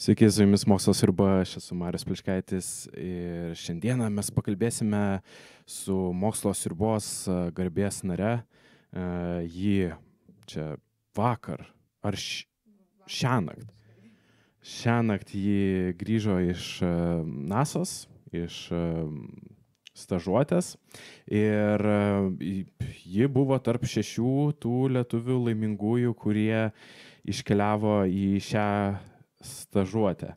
Sveiki, su jumis Mokslo sriuba, aš esu Marius Pliškaitis ir šiandieną mes pakalbėsime su Mokslo sriubos garbės nare. Ji čia vakar ar šiąnakt. Šiąnakt ji grįžo iš NASA's, iš stažuotės ir ji buvo tarp 6 tų lietuvių laimingųjų, kurie iškeliavo į šią stažuotę.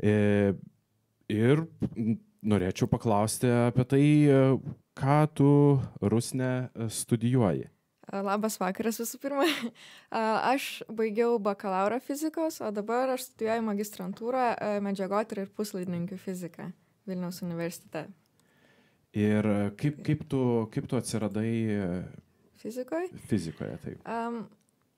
Ir norėčiau paklausti apie tai, ką tu, Rusne, studijuoji. Labas vakaras visų pirma. Aš baigiau bakalauro fizikos, o dabar aš studijuoju magistrantūrą medžiagotyra ir puslaidininkių fiziką Vilniaus universitete. Ir kaip tu atsiradai Fizikoje? Fizikoje, taip.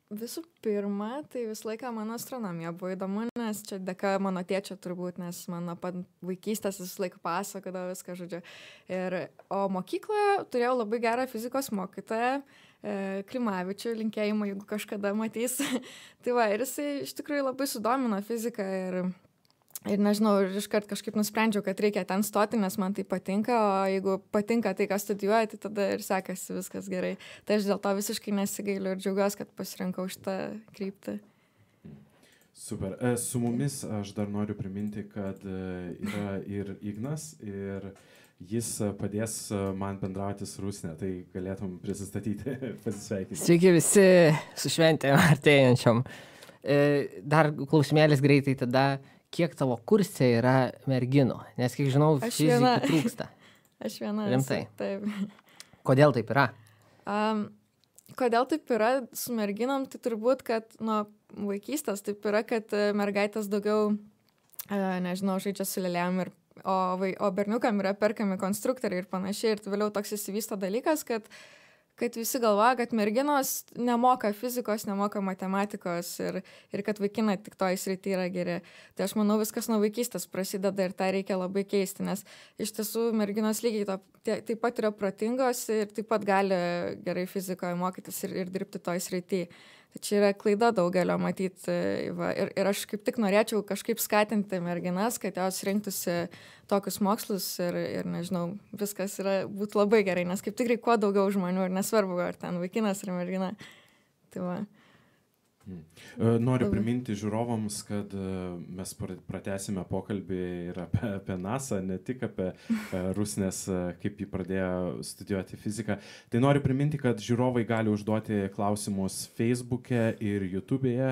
Visų pirma, tai visą laiką mano astronomija buvo įdomu, nes čia dėka mano tėčio turbūt, nes mano pat vaikystės visą laiką pasakodavo viską, žodžiu. O mokykloje turėjau labai gerą fizikos mokytoją, Klimavičių, linkėjimą, jeigu kažkada matys. Tai va, ir jisai iš tikrųjų labai sudomino fiziką ir nežinau, ir iškart kažkaip nusprendžiau, kad reikia ten stoti, nes man tai patinka, o jeigu patinka tai, ką studijuoju, tai tada ir sekasi viskas gerai. Tai aš dėl to visiškai nesigailiu ir džiaugiuosi, kad pasirinkau šitą kryptį. Super. Su mumis aš dar noriu priminti, kad yra ir Ignas, ir jis padės man bendrauti su Rusne, tai galėtum prisistatyti, pasisveikinti. Sveiki visi su šventėm artėjančiom. Dar klausimėlis greitai tada. Kiek tavo kurse yra merginų? Nes, kiek žinau, fizikų trūksta. Aš viena. Rimtai? Taip. Kodėl taip yra? Kodėl taip yra su merginom? Tai turbūt, kad nuo vaikystės taip yra, kad mergaitės daugiau, nežinau, žaidžia su lėlėm, o berniukam yra perkami konstruktoriai ir panašiai. Ir vėliau toks įsivysto dalykas, kad visi galvoja, kad merginos nemoka fizikos, nemoka matematikos ir kad vaikinai tik toj srity yra geri. Tai aš manau, viskas nuo vaikystės prasideda ir tą reikia labai keisti, nes iš tiesų merginos lygiai taip pat yra protingos ir taip pat gali gerai fizikoje mokytis ir dirbti toj srity. Tai čia yra klaida daugelio matyti. Ir aš kaip tik norėčiau kažkaip skatinti merginas, kad jos rinktųsi tokius mokslus ir nežinau, viskas būtų labai gerai, nes kaip tikrai kuo daugiau žmonių ir nesvarbu, ar ten vaikinas ar mergina. Tai va. Noriu priminti žiūrovams, kad mes pratęsime pokalbį ir apie NASA, ne tik apie Rusnės, kaip jį pradėjo studijuoti fiziką. Tai noriu priminti, kad žiūrovai gali užduoti klausimus Facebook'e ir YouTube'e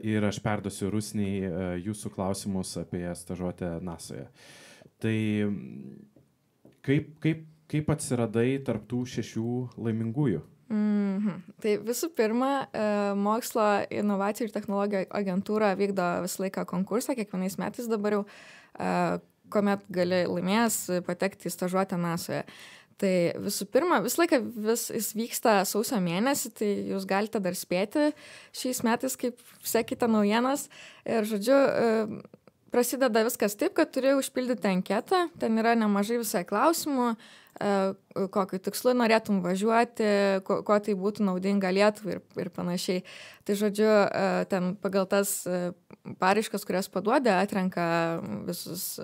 ir aš perduosiu Rusnei jūsų klausimus apie stažuotę NASA'je. Tai kaip atsiradai tarp tų 6 laimingųjų? Tai visų pirma, mokslo inovacijų ir technologijų agentūra vykdo visą laiką konkursą, kiekvienais metais dabar jau, kuomet gali laimėjęs patekti į stažuotę NASA'je. Tai visų pirma, visą laiką jis vyksta sausio mėnesį, tai jūs galite dar spėti šiais metais, kaip sekite naujienas. Ir žodžiu, prasideda viskas taip, kad turi užpildyti anketą, ten yra nemažai visai klausimų, kokiu tikslu norėtum važiuoti, ko tai būtų naudinga Lietuvai ir panašiai. Tai žodžiu, ten pagal tas paraiškas, kurias paduoda, atrenka visus,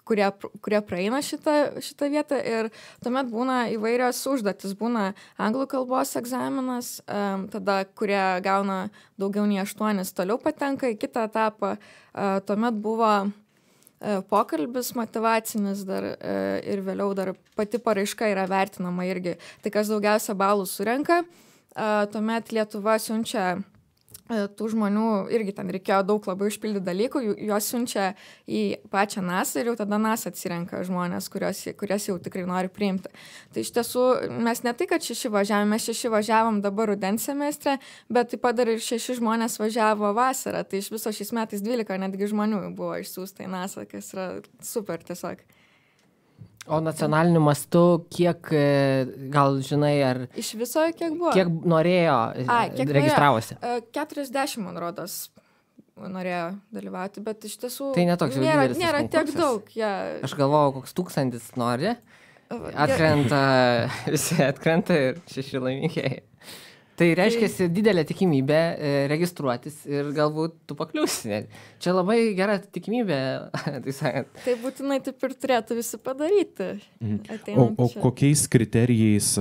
kurie praeina šitą vietą ir tuomet būna įvairios užduotis. Būna anglų kalbos egzaminas, tada, kurie gauna daugiau nei 8, toliau patenka į kitą etapą. Tuomet buvo pokalbis motyvacinis dar ir vėliau dar pati paraiška yra vertinama irgi. Tai kas daugiausia balų surenka, tuomet Lietuva siunčia tų žmonių, irgi ten reikėjo daug labai užpildyti dalykų, juos siunčia į pačią NASA ir jau tada NASA atsirenka žmonės, kurias jau tikrai nori priimti. Tai iš tiesų mes ne tai, kad 6 važiavom, mes 6 važiavom dabar rudens semestre, bet taip pat dar ir 6 žmonės važiavo vasarą. Tai iš viso šiais metais 12 netgi žmonių buvo išsiųsta į NASA, kas yra super tiesiog. O nacionaliniu mastu kiek, gal žinai, ar... Iš viso kiek buvo? Kiek norėjo, registravosi? 40, man rodos, norėjo dalyvauti, bet iš tiesų... Tai netoks jau didelis nėra tiek konkursas. daug. Ja. Aš galvojau, koks 1000 nori. Visi atkrenta ir 6 laimikėjai. Tai reiškia didelė tikimybė registruotis ir galbūt tu pakliūsi. Čia labai gera tikimybė, tai sakant. Tai būtinai taip ir turėtų visi padaryti. O kokiais kriterijais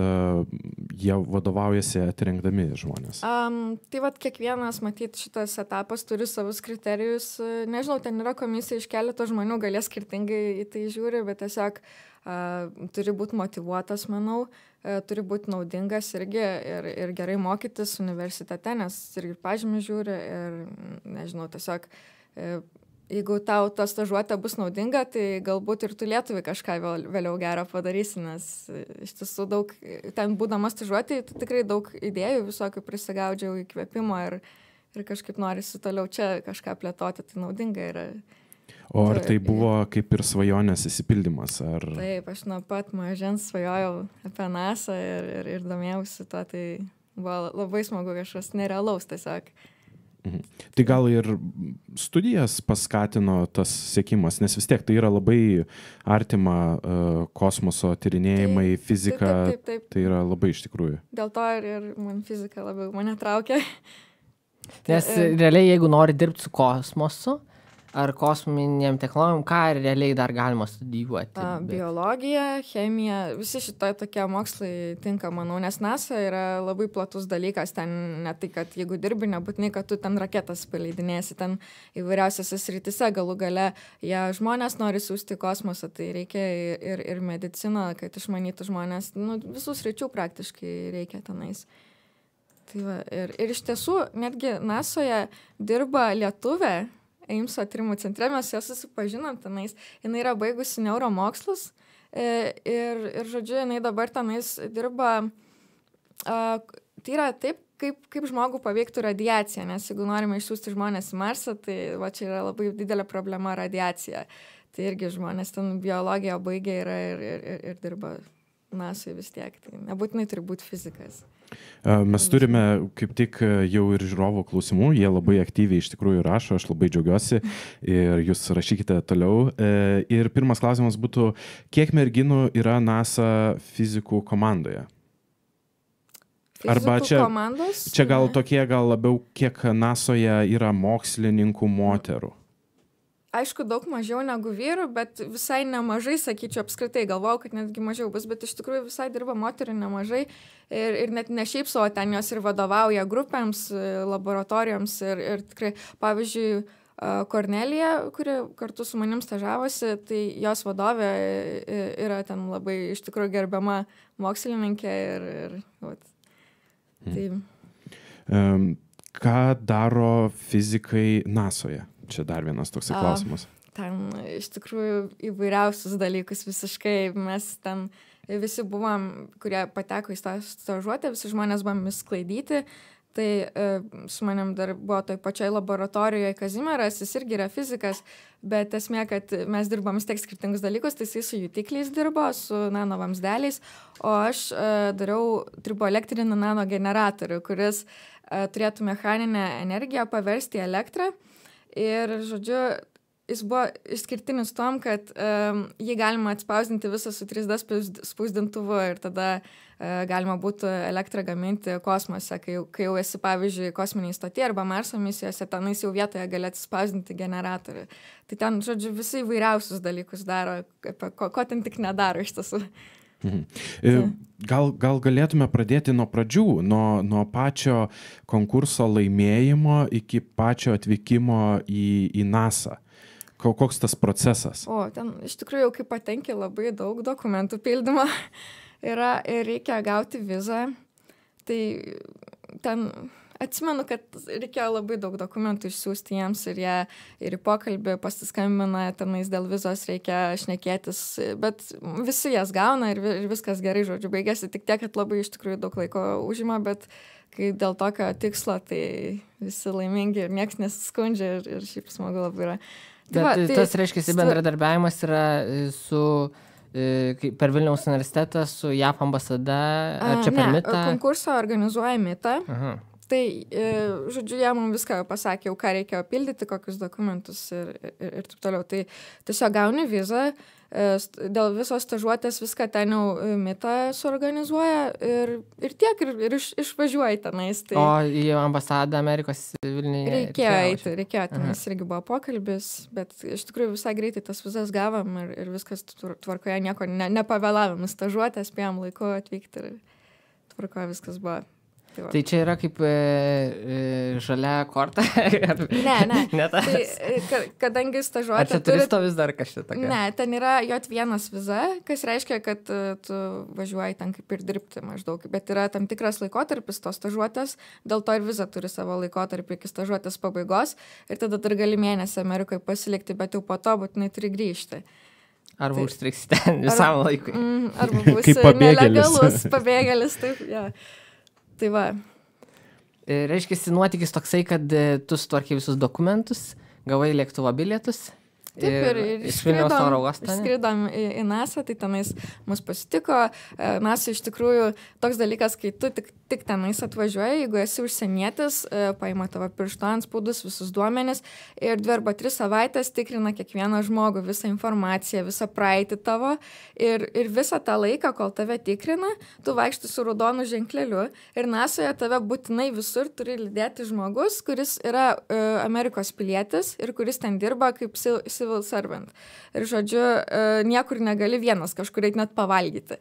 jie vadovaujasi atrinkdami žmonės? Tai vat kiekvienas, matyt, šitas etapas turi savus kriterijus. Nežinau, ten yra komisija iš keleto žmonių, galės skirtingai į tai žiūri, bet tiesiog turi būti motyvuotas, manau. Turi būti naudingas irgi ir gerai mokytis universitete, nes irgi pažymį žiūri ir, nežinau, tiesiog, jeigu tau ta stažuotė bus naudinga, tai galbūt ir tu Lietuvai kažką vėliau gero padarysi, nes iš tiesų daug, ten būdamas stažuotė, tai tikrai daug idėjų visokių prisigaudžiau įkvėpimo ir kažkaip norisi toliau čia kažką plėtoti, tai naudinga yra. O ar tai buvo kaip ir svajonės įsipildymas? Ar... Taip, aš nuo pat mažens svajojau apie NASA ir domėjausi to, tai buvo labai smagu kažkas nerealaus tiesiog. Tai gal ir studijas paskatino tas siekimas, nes vis tiek tai yra labai artima kosmoso tyrinėjimai, fizika, taip. Tai yra labai iš tikrųjų. Dėl to ir man fizika labiau mane traukia. Nes realiai, jeigu nori dirbti su kosmosu, ar kosminėm technologijom, ką realiai dar galima studijuoti? Biologija, chemija, visi šitai tokie mokslai tinka, manau, nes NASA yra labai platus dalykas, ten ne tai, kad jeigu dirbi, nebūtinai, kad tu ten raketas paleidinėsi, ten įvairiausiose srityse galų gale, jie žmonės nori siųsti į kosmosą, tai reikia ir mediciną, kad išmanytų žmonės, visus sričių praktiškai reikia tenais. Tai va, ir iš tiesų, netgi NASOje dirba lietuvė, Eimso tyrimų centre, mes ją susipažinom tenais, jinai yra baigusi neuromokslus ir žodžiu, jinai dabar tenais dirba, tai yra taip, kaip žmogų paveiktų radiacija, nes jeigu norime išsiųsti žmonės į Marsą, tai va čia yra labai didelė problema radiacija, tai irgi žmonės ten biologiją baigė ir dirba NASOje vis tiek, tai nebūtinai turi būti fizikas. Mes turime kaip tik jau ir žiūrovų klausimų, jie labai aktyviai iš tikrųjų rašo, aš labai džiaugiuosi ir jūs rašykite toliau. Ir pirmas klausimas būtų, kiek merginų yra NASA fizikų komandoje? Arba čia gal tokie, gal labiau, kiek NASOje yra mokslininkų moterų? Aišku, daug mažiau negu vyrų, bet visai nemažai, sakyčiau, apskritai galvojau, kad netgi mažiau bus, bet iš tikrųjų visai dirba moterų nemažai ir net ne šiaip savo, ten jos ir vadovauja grupėms, laboratorijoms ir tikrai, pavyzdžiui, Kornelija, kuri kartu su manim stažavosi, tai jos vadovė yra ten labai iš tikrųjų gerbiama mokslininkė ir tai. Ką daro fizikai NASOje? Čia dar vienas toks klausimas. Ten iš tikrųjų įvairiausius dalykus visiškai. Mes ten visi buvom, kurie pateko į stažuotę, visi žmonės buvom sklaidyti. Tai su manim dar buvo toj pačioj laboratorijoje Kazimieras, jis irgi yra fizikas, bet esmė, kad mes dirbom vis tiek skirtingus dalykus, tai jis su jutikliais dirbo, su nanovamsdeliais, o aš dariau triboelektrinį nanogeneratorių, kuris turėtų mechaninę energiją paversti į elektrą. Ir, žodžiu, jis buvo išskirtinis tom, kad jį galima atspausdinti visą su 3D spausdintuvu ir tada galima būtų elektrą gaminti kosmose, kai jau esi, pavyzdžiui, kosminiai stotyje arba Marso misijose, tenais jau vietoje gali atspausdinti generatorių. Tai ten, žodžiu, visi įvairiausius dalykus daro, ko ten tik nedaro iš tiesų. Gal galėtume pradėti nuo pradžių, nuo pačio konkurso laimėjimo iki pačio atvykimo į NASA. Koks tas procesas? Ten iš tikrųjų jau kai patenki labai daug dokumentų pildymo yra ir reikia gauti vizą. Tai ten atsimenu, kad reikėjo labai daug dokumentų išsiųsti jiems ir jie ir į pokalbį pasiskambina, tenais dėl vizos reikia šnekėtis, bet visi jas gauna ir viskas gerai, žodžiu, baigėsi tik tiek, kad labai iš tikrųjų daug laiko užima, bet kai dėl tokio tikslo, tai visi laimingi ir nieks nesiskundžia ir šiaip smagu labai yra. Bet tas reiškia, bendradarbiavimas yra per Vilniaus universitetą su JAF ambasada, ar čia per MITA? Ne, konkursą organizuoja MITA. Aha. tai, žodžiu, jie mums viską pasakė, jau ką reikėjo pildyti, kokius dokumentus ir taip toliau. Tai tiesiog gauni vizą, dėl visos stažuotės viską ten jau Mita suorganizuoja ir tiek, ir išvažiuoji tenais. Tai O į ambasadą Amerikos Vilniuje reikėjo tenais irgi buvo pokalbis, bet iš tikrųjų visai greitai tas vizas gavom ir viskas tvarkoje, nieko nepavėlavom, stažuotę spėjom laiku atvykti ir tvarkoje viskas buvo. Tai čia yra kaip žalia korta? Ne. Tai, kadangi stažuotė... Ar čia turisto vis dar kažkaip tokia? Ne, ten yra J1 viza, kas reiškia, kad tu važiuoji ten kaip ir dirbti maždaug, bet yra tam tikras laikotarpis tos stažuotės, dėl to ir viza turi savo laikotarpį iki stažuotės pabaigos ir tada dar gali mėnesį Amerikoje pasilikti, bet jau po to būtinai turi grįžti. Arba užstriksi ten visam laikui. Arba būsi nelegalus pabėgėlis, taip, ja. Tai va. Reiškia, nuotykis toksai, kad tu sutvarkė visus dokumentus, gavai lėktuvo bilietus. Taip, ir išskridom į NASA, tai tenais mus pasitiko. NASA iš tikrųjų toks dalykas, kai tu tik tenais atvažiuoji, jeigu esi užsienietis, paima tavo piršto antspaudus, visus duomenis ir 2 arba 3 savaitės tikrina kiekvieną žmogų, visą informaciją, visą praeitį tavo ir visą tą laiką, kol tave tikrina, tu vaikšti su raudonu ženkleliu ir NASA'je tave būtinai visur turi lydėti žmogus, kuris yra Amerikos pilietis ir kuris ten dirba kaip civil servant. Ir žodžiu, niekur negali vienas kažkur eit net pavalgyti.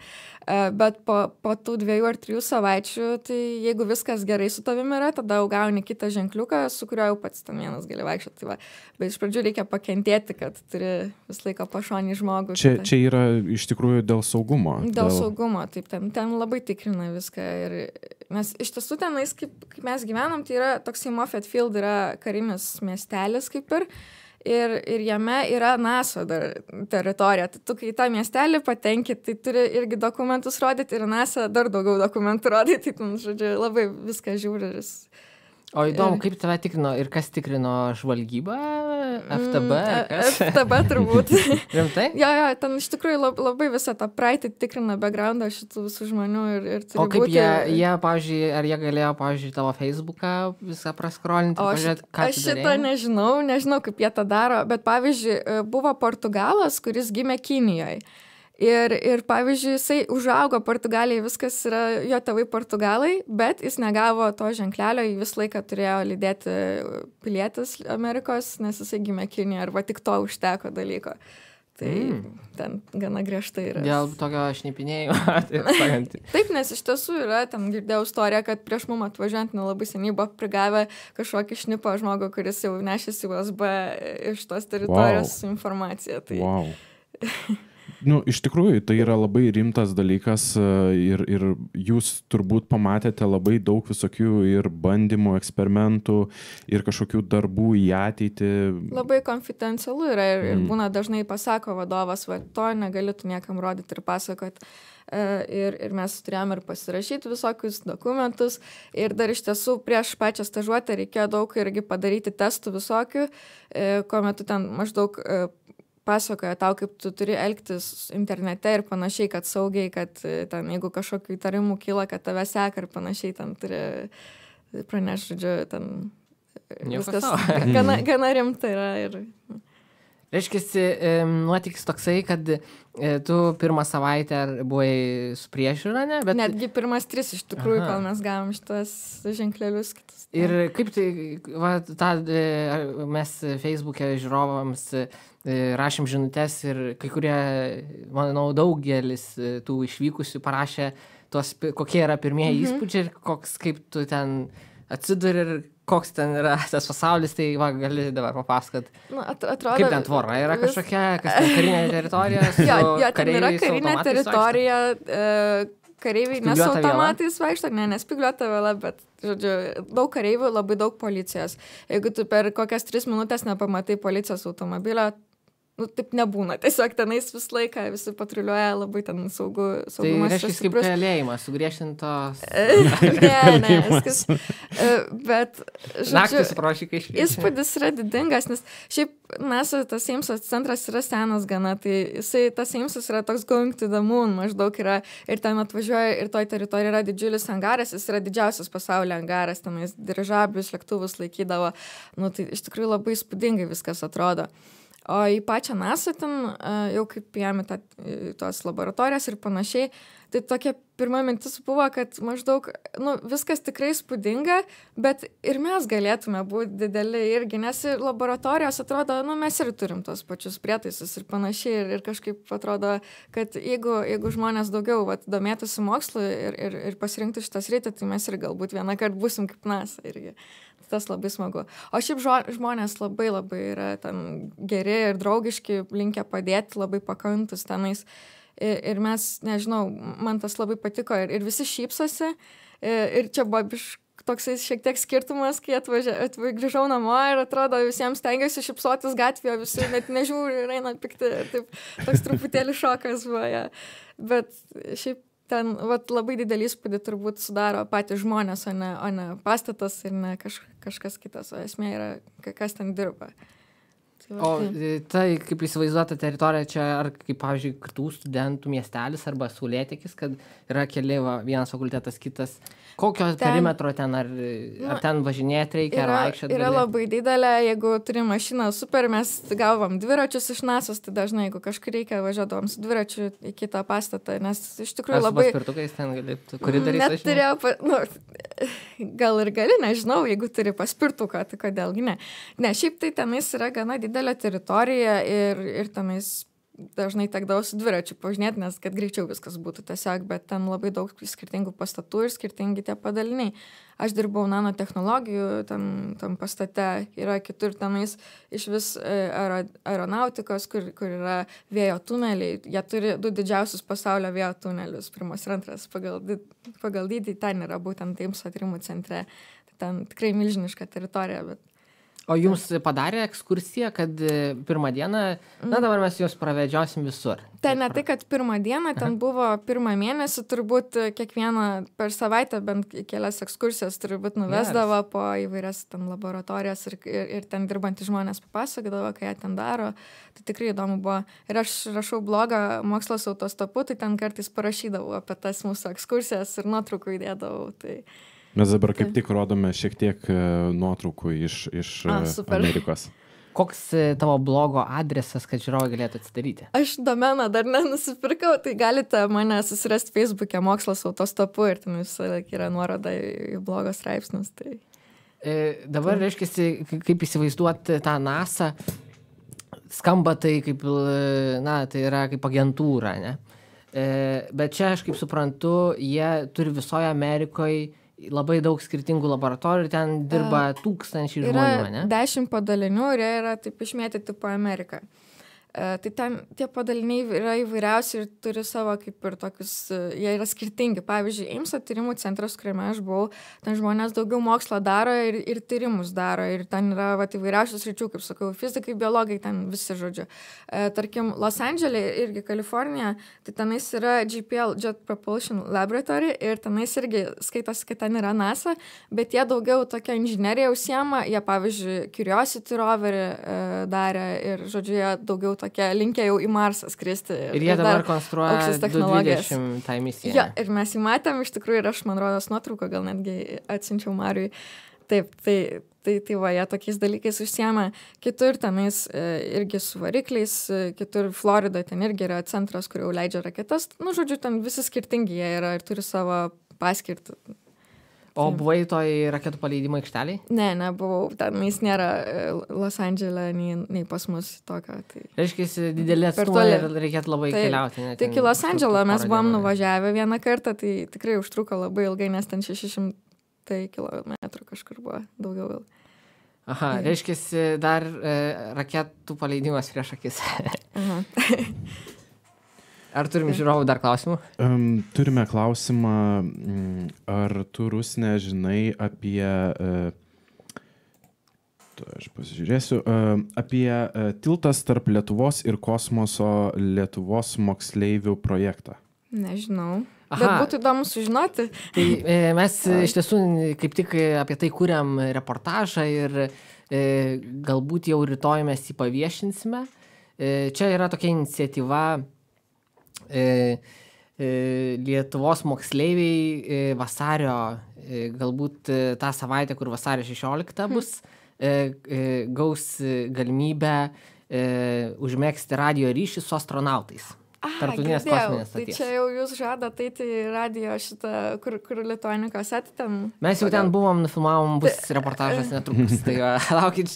Bet po tų 2 ar 3 savaičių, tai jeigu viskas gerai su tavimi yra, tada jau gauni kitą ženkliuką, su kuriuo jau pats ten vienas gali vaikščioti. Tai va. Bet iš pradžių reikia pakentėti, kad turi vis laiką pašonį žmogų. Čia yra iš tikrųjų dėl saugumo. Dėl saugumo, taip, ten labai tikrina viską. Ir mes iš tiesų tenais, kaip mes gyvenam, tai yra toksai Moffett Field, yra karinis miestelis kaip ir jame yra NASA dar teritorija. Tai tu, kai į tą miestelį patenki, tai turi irgi dokumentus rodyti ir NASA dar daugiau dokumentų rodyti. Tai, žodžiu, labai viską žiūri. O įdomu, kaip tave tikrino ir kas tikrino žvalgybą? FTB? FTB turbūt. Rimtai? Jo, ten iš tikrųjų labai visą tą praeitį tikrina backgroundą šitų visų žmonių ir turi būti... O kaip jie, pavyzdžiui, ar jie galėjo, pavyzdžiui, tavo Facebooką visą praskrolinti? Aš šitą nežinau, kaip jie tą daro, bet pavyzdžiui, buvo Portugalas, kuris gimė Kinijoje. Ir pavyzdžiui, jisai užaugo Portugalijai, viskas yra jo tėvai Portugalai, bet jis negavo to ženklelio, jį visą laiką turėjo lydėti pilietis Amerikos, nes jisai gimė Kinijoje, arba tik to užteko dalyko. Tai ten gana griežtai yra. Dėl tokio šnipinėjimo. Taip, nes iš tiesų yra, ten girdėjau istoriją, kad prieš mum atvažiuojant nelabai seniai buvo prigavę kažkokį šnipą žmogų, kuris jau nešėsi USB iš tos teritorijos su informacija. Tai... Wow. Iš tikrųjų, tai yra labai rimtas dalykas ir jūs turbūt pamatėte labai daug visokių ir bandymų, eksperimentų ir kažkokių darbų į ateitį. Labai konfidencialu yra ir būna dažnai pasako vadovas, va, to negali tu niekam rodyti ir pasakot. Ir mes turėjom ir pasirašyti visokius dokumentus ir dar iš tiesų prieš pačią stažuotę reikėjo daug irgi padaryti testų visokių, kuomet tu ten maždaug pasakoja tau, kaip tu turi elgtis internete ir panašiai, kad saugiai, kad ten, jeigu kažkokių įtarimų kyla, kad tave seka ir panašiai, ten turi pranešti, žodžiu, ten viskas gana rimta yra. Reiškiasi, nuotykis toksai, kad tu pirmą savaitę buvai su priežiūra, ne? Bet... Netgi pirmas 3 iš tikrųjų, kol mes gavom šitas ženklelius kitus. Ir kaip tai, mes Facebook'e žiūrovams rašėm žinutes ir kai kurie, manau, daugelis tų išvykusių parašė kokie yra pirmieji įspūdžiai ir kaip tu ten atsiduri ir koks ten yra tas pasaulis, tai gali dabar papasakot. Atrodo, kaip ten tvora yra kažkokia, kas ten karinė teritorija su ten yra karinė teritorija, kareiviai ne su automatais vaikšto, nespygliuota vėla, bet, žodžiu, daug kareivių, labai daug policijos. Jeigu tu per kokias 3 minutės nepamatai policijos automobilio, taip nebūna. Tiesiog tenais visą laiką visi patruliuoja, labai ten saugumas. Tai reiškia kaip kalėjimas, sugriežtintos. Ne, viskas. Bet, Naktis prošikai šviečia. Įspūdis yra didingas, nes šiaip NASA, tas Eimso centras yra senas gana, tai tas Eimsas yra toks going to the moon, maždaug yra, ir ten atvažiuoja, ir toj teritorijoje yra didžiulis angaras, jis yra didžiausias pasaulio angaras, tenais dirižablius, lėktuvus laikydavo, tai iš tikrųjų labai įspūdingai viskas atrodo. O į pačią NASA ten, jau kaip jam tos laboratorijas ir panašiai, tai tokia pirma mintis buvo, kad maždaug, viskas tikrai įspūdinga, bet ir mes galėtume būti dideli irgi, nes laboratorijos atrodo, mes ir turim tos pačius prietaisus ir panašiai, ir kažkaip atrodo, kad jeigu žmonės daugiau domėtųsi mokslu ir pasirinktų šitą sritį, tai mes ir galbūt vieną kartą būsim kaip NASA irgi. Tas labai smagu. O šiaip žmonės labai yra ten geri ir draugiški, linkę padėti, labai pakantus tenais. Ir mes, nežinau, man tas labai patiko ir visi šypsosi. Ir čia buvo toksai šiek tiek skirtumas, kai grįžau namo ir atrodo visiems stengiuosi šypsotis gatvėje, visi net nežiūri ir eina pikti. Taip, toks truputėlį šokas buvo. Ja. Bet šiaip ten labai didelį įspūdį turbūt sudaro patys žmonės, o ne pastatas ir ne kažkas kitas, o esmė yra, kas ten dirba. O tai, kaip įsivaizduota teritorija čia, ar kaip, pavyzdžiui, kitų studentų miestelis arba Saulėtekis, kad yra keli, vienas fakultetas, kitas. Kokio perimetro ten, ar ten važinėti reikia, ar vaikščioti? Yra labai didelė, jeigu turi mašiną super, mes gavom dviračius iš NASA's, tai dažnai, jeigu kažkur reikia, važiuodavom su dviračiu į kitą pastatą, nes iš tikrųjų labai... Ar su paspirtukais ten galėtų, kuri darys važinėti? Net turėjau, gal ir gali, nežinau, jeigu turi paspirtuką, tai kodėlgi ne. Ne, šiaip tai tenais yra gana didelė teritorija ir tenais dažnai tekdavo su dviračiu pažinėti, nes kad greičiau viskas būtų tiesiog, bet ten labai daug skirtingų pastatų ir skirtingi tie padaliniai. Aš dirbau nanotechnologijų, tam pastate yra kitur tenais iš vis aeronautikos, kur yra vėjo tuneliai. Jie turi 2 didžiausius pasaulio vėjo tunelius, pirmas ir antras pagal dydį, ten yra būtent Eimso tyrimų centre. Ten tikrai milžiniška teritorija, bet O jums padarė ekskursiją, kad pirmą dieną, dabar mes jūs pravedžiosim visur. Ten ne tai, kad pirmą dieną, ten buvo pirmą mėnesį, turbūt kiekvieną per savaitę bent kelias ekskursijas turbūt nuvesdavo po įvairias ten laboratorijas ir ten dirbantys žmonės papasakodavo, ką jie ten daro. Tai tikrai įdomu buvo. Ir aš rašau blogą Mokslas autostopu, tai ten kartais parašydavau apie tas mūsų ekskursijas ir nuotraukų įdėdavau. Tai... Mes dabar kaip tik rodome šiek tiek nuotraukų iš Amerikos. Koks tavo blogo adresas, kad žiūrovai galėtų atsidaryti? Aš domeną dar nenusipirkau, tai galite mane susirasti Facebook'e Mokslas autostopu ir ten visą laiką yra nuoroda į blogo straipsnius. Tai... Dabar reiškiasi, kaip įsivaizduoti tą NASA, skamba tai kaip, tai yra kaip agentūra, ne? Bet čia aš kaip suprantu, jie turi visoje Amerikoje labai daug skirtingų laboratorijų ir ten dirba tūkstančiai žmonių, ne? Yra 10 padalinių ir jie yra taip išmėtyti po Ameriką. Tai ten tie padaliniai yra įvairiausi ir turi savo kaip ir tokius, jie yra skirtingi. Pavyzdžiui, Eimso tyrimų centras, kuriame aš buvau, ten žmonės daugiau mokslo daro ir tyrimus daro. Ir ten yra įvairiausių sričių, kaip sakau, fizikai, biologai, ten visi žodžiu. Tarkim, Los Andželė irgi Kalifornija, tai tenais yra JPL, Jet Propulsion Laboratory, ir tenais irgi skaitosi, kad ten yra NASA, bet jie daugiau tokia inžinerija užsiema, jie pavyzdžiui Curiosity roverį darė ir žodžiu, jie daugiau tokia linkę jau į Marsą skristi. Ir jie dabar konstruoja 20 tą misiją. Ja, ir mes jį matėm, iš tikrųjų, ir aš, man rodos, nuotrauką gal netgi atsiunčiau Mariui. Taip, tai va, jie tokiais dalykais užsiema. Kitur tenais irgi su varikliais, kitur Floridoje ten irgi yra centras, kur jau leidžia raketas. Žodžiu, ten visi skirtingi jie yra ir turi savo paskirtį. O buvai toj raketų paleidimo aikšteliai? Ne, nebuvau. Tenais nėra Los Andželė, nei pas mus tokio. Tai... Reiškia, didelė atstumai ir reikėtų labai keliauti. Tai iki Los Andželą mes buvom nuvažiavę vieną kartą, tai tikrai užtruko labai ilgai, nes ten 600 kilometrų kažkur buvo daugiau gal. Aha, reiškia, dar raketų paleidimas prieš akis. Aha. Ar turim žiūrovų dar klausimų? Turime klausimą, ar tu, Rusne, žinai apie Aš pasižiūrėsiu. Apie tiltas tarp Lietuvos ir kosmoso Lietuvos moksleivių projektą. Nežinau. Aha. Bet būtų įdomu sužinoti. Tai mes iš tiesų kaip tik apie tai kuriam reportažą ir galbūt jau rytoj mes jį paviešinsime. Čia yra tokia iniciatyva Lietuvos moksleiviai vasario, galbūt tą savaitę, kur vasario 16 bus, gaus galimybę užmegzti radijo ryšį su astronautais. Tarptautinės kosminės Tai stoties. čia jau jūs žadat eiti į radijo šitą, kur Lituanikos ten. Mes jau ten buvom, nufilmavom, bus reportažas netrukus. Tai laukit,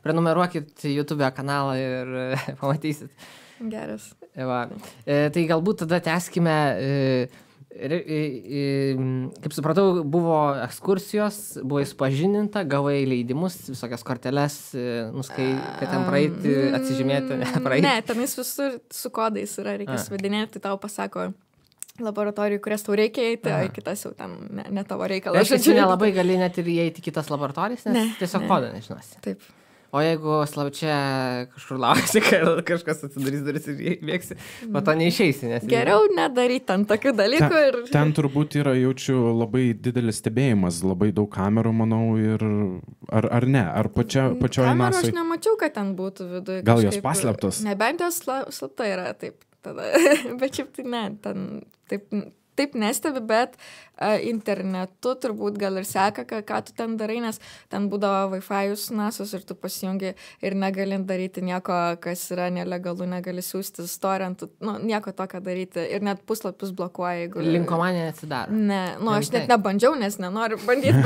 prenumeruokit YouTube kanalą ir pamatysit. Geras. Va. Tai galbūt tada tęskime, kaip supratau, buvo ekskursijos, buvo supažininta, gavai leidimus, visokias korteles, kad ten praeiti, atsižymėti, praeiti. Ne, tenais visur su kodais yra, reikia suvedinėti, tai tau pasako laboratorijų, kurias tau reikia eiti, o kitas jau ten ne tavo reikalas. Aš čia nelabai gali net ir įeiti kitas laboratorijas, nes tiesiog kodą nežinosi. Taip. O jeigu slapčia kažkur lauksi, kad kažkas atsidarys duris ir bėgsi, po to neišeisi. Nes Geriau nedaryti ten tokių dalykų. Ten turbūt yra, jaučiu, labai didelis stebėjimas, labai daug kamerų, manau, ir ar ne, ar pačioje Kamerų NASA'oj. aš nemačiau, kad ten būtų viduje. Gal jos paslėptos? Nebent jos slapta yra, taip. Tada. Bet šiaip tai ne, ten taip nestebi, bet internetu turbūt gal ir seka, ką tu ten darai, nes ten būdavo Wi-Fi'us NASA'os ir tu pasijungi ir negali daryti nieko, kas yra nelegalu, negali siūsti storintų, nieko tokio daryti ir net puslapius blokuoja, jeigu... Linkomanija neatsidaro. Ne, aš net nebandžiau, nes nenoriu bandyti,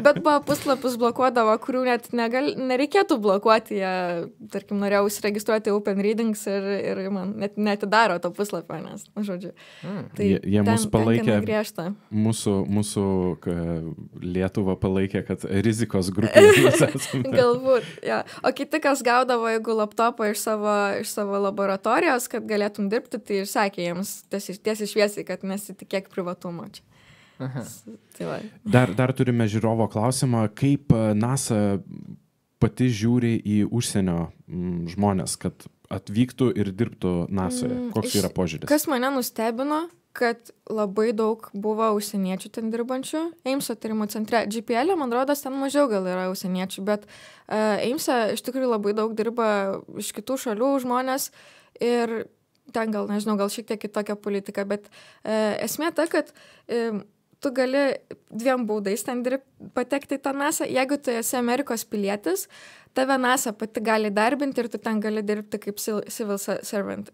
bet buvo puslapius blokuodavo, kurių net nereikėtų blokuoti, jie, tarkim, norėjau įsiregistruoti Open Readings ir man net netidaro to puslapio, nes, žodžiu. Tai jie mus palaikė, griežta. Mūsų Lietuvą palaikė, kad rizikos grupė. Galbūt, ja. O kiti, kas gaudavo, jeigu laptopą iš savo laboratorijos, kad galėtum dirbti, tai ir sakė jiems tiesiai šviesiai, kad nesitikėk privatumo čia. Tai va. Dar turime žiūrovo klausimą, kaip NASA pati žiūri į užsienio žmonės, kad atvyktų ir dirbtų NASA'je. Koks yra požiūris? Kas mane nustebino, kad labai daug buvo užsieniečių ten dirbančių. Eimso tyrimų centre. GPL, man rodos, ten mažiau gal yra užsieniečių, bet Eimse iš tikrųjų labai daug dirba iš kitų šalių žmonės ir ten gal, nežinau, gal šiek tiek kitokia politika, bet esmė ta, kad tu gali dviem būdais ten patekti į tą NASA. Jeigu tu esi Amerikos pilietis, tave NASA pati gali darbinti ir tu ten gali dirbti kaip civil servant.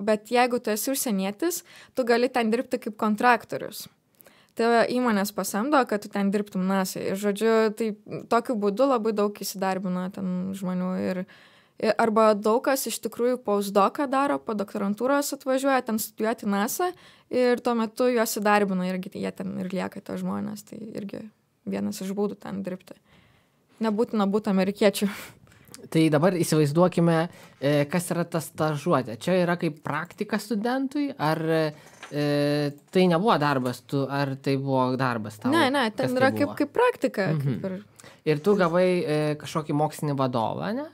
Bet jeigu tu esi užsienietis, tu gali ten dirbti kaip kontraktorius. Tave įmonės pasamdo, kad tu ten dirbtum NASA. Ir žodžiu, tai tokiu būdu labai daug įsidarbino ten žmonių. Arba daug kas iš tikrųjų postdoką daro, po doktorantūros atvažiuoja ten studijuoti NASA ir tuo metu juos įdarbino irgi jie ten ir lieka to žmonės. Tai irgi vienas iš būdų ten dirbti. Nebūtina būti amerikiečių. Tai dabar įsivaizduokime, kas yra ta stažuotė. Čia yra kaip praktika studentui, ar tai nebuvo darbas, ar tai buvo darbas tau? Ne, ten yra kaip praktika. Ir tu gavai kažkokį mokslinį vadovą, ne?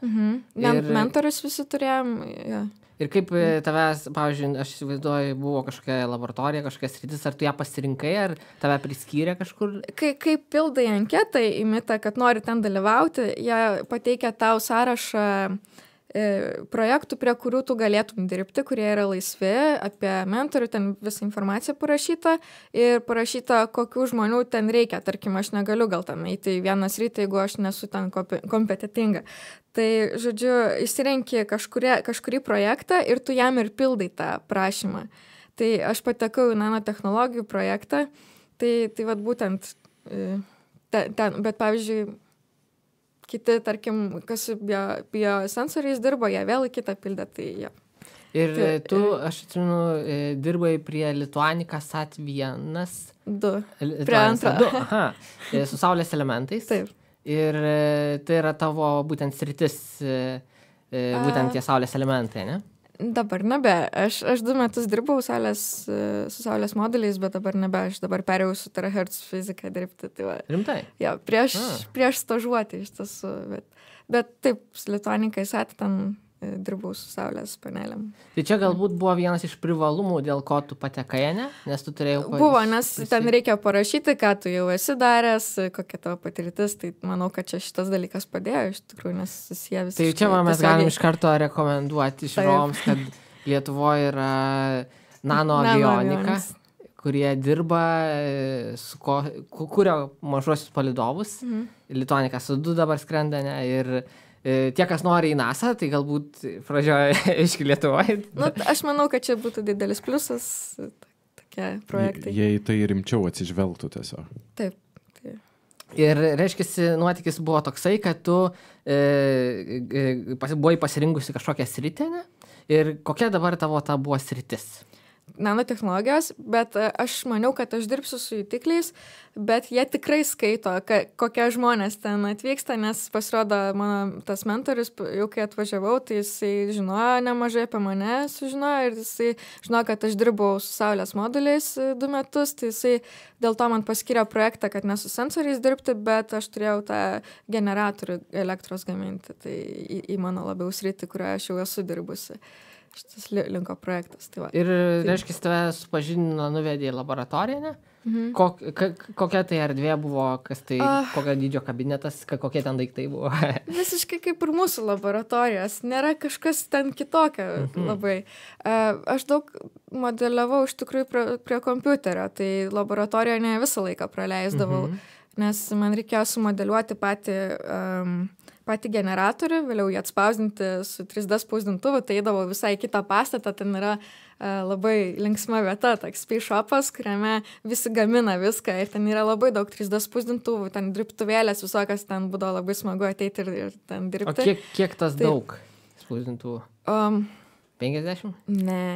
Mentorius visi turėjom. Ja. Ir kaip tavęs, pavyzdžiui, aš įsivaizduoju, buvo kažkokia laboratorija, kažkokia sritis, ar tu ją pasirinkai, ar tave priskyrė kažkur? Kai pildai anketą į mitą, kad nori ten dalyvauti, jie pateikia tau sąrašą projektų, prie kurių tu galėtum dirbti, kurie yra laisvi, apie mentorių, ten visą informaciją parašyta ir parašyta, kokių žmonių ten reikia. Tarkim, aš negaliu gal tam eiti į vieną sritį, jeigu aš nesu ten kompetitinga. Tai, žodžiu, įsirenki kažkurį projektą ir tu jam ir pildai tą prašymą. Tai aš patekau į nanotechnologijų projektą, tai vat būtent ten, bet pavyzdžiui, kiti, tarkim, kas biosensoriais dirbo, jie vėl į kitą pildę, tai jie. Ir tu, aš atsimenu, dirbai prie Lituanika SAT1. 2. Prie antrą. 2, aha, su saulės elementais. Taip. Ir tai yra tavo būtent sritis, būtent tie saulės elementai, ne? Dabar nebe. Aš 2 metus dirbau su saulės moduliais, bet dabar nebe. Aš dabar perėjau su terahertz fizika dirbti. Tai va. Rimtai? Jo, prieš stažuotį iš tiesų. Bet taip, su Lituanika įsatė ten dirbau su saulės panelėm. Tai čia galbūt buvo vienas iš privalumų, dėl ko tu patekai, ne? Nes tu turėjai... Buvo, nes ten reikia parašyti, ką tu jau esi daręs, kokia tavo patirtis, tai manau, kad čia šitas dalykas padėjo, iš tikrųjų, nes susiję visiškai. Tai čia mes galim iš karto rekomenduoti žiūrovams, kad Lietuvoje yra nanoavionika, kurie dirba, kuria mažuosius palydovus. Lituanika su 2 dabar skrenda, ne? Ir tie, kas nori į NASA, tai galbūt pradžioje iški Lietuvoje. Nu, aš manau, kad čia būtų didelis pliusas, tokie projektai. Jei tai rimčiau atsižvelgtų tiesiog. Taip. Ir, reiškia, nuotykis buvo toksai, kad tu buvai pasirinkusi kažkokią sritį, ne? Ir kokia dabar tavo ta buvo sritis? Nanotechnologijos, bet aš maniau, kad aš dirbsiu su jutikliais, bet jie tikrai skaito, kokie žmonės ten atvyksta, nes pasirodo mano tas mentorius, jau kai atvažiavau, tai jisai žinojo nemažai apie mane, sužinojo ir jisai žinojo, kad aš dirbau su saulės moduliais 2 metus, tai jisai dėl to man paskyrė projektą, kad ne su sensoriais dirbti, bet aš turėjau tą generatorių elektros gaminti, tai į mano labiau sritį, kurioje aš jau esu dirbusi. Šitas linko projektas. Tai va. Ir, reiškia, tave supažindino, nuvedė į laboratoriją, ne? Kokia tai erdvė buvo, kas tai, kokio dydžio kabinetas, kokie ten daiktai buvo? Visiškai kaip ir mūsų laboratorijos. Nėra kažkas ten kitokio labai. Aš daug modeliavau iš tikrųjų prie kompiuterio, tai laboratorijoje ne visą laiką praleisdavau, nes man reikėjo sumodeliuoti patį generatorių, vėliau jį atspausdinti su 3D spausdintuvu, tai eidavau visai kitą pastatą, ten yra labai linksma vieta, toks space shopas, kuriame visi gamina viską ir ten yra labai daug 3D spausdintuvų, ten dirbtuvėlės visokios, ten būdavo labai smagu ateiti ir ten dirbti. O kiek tas daug spausdintuvų? 50? Ne,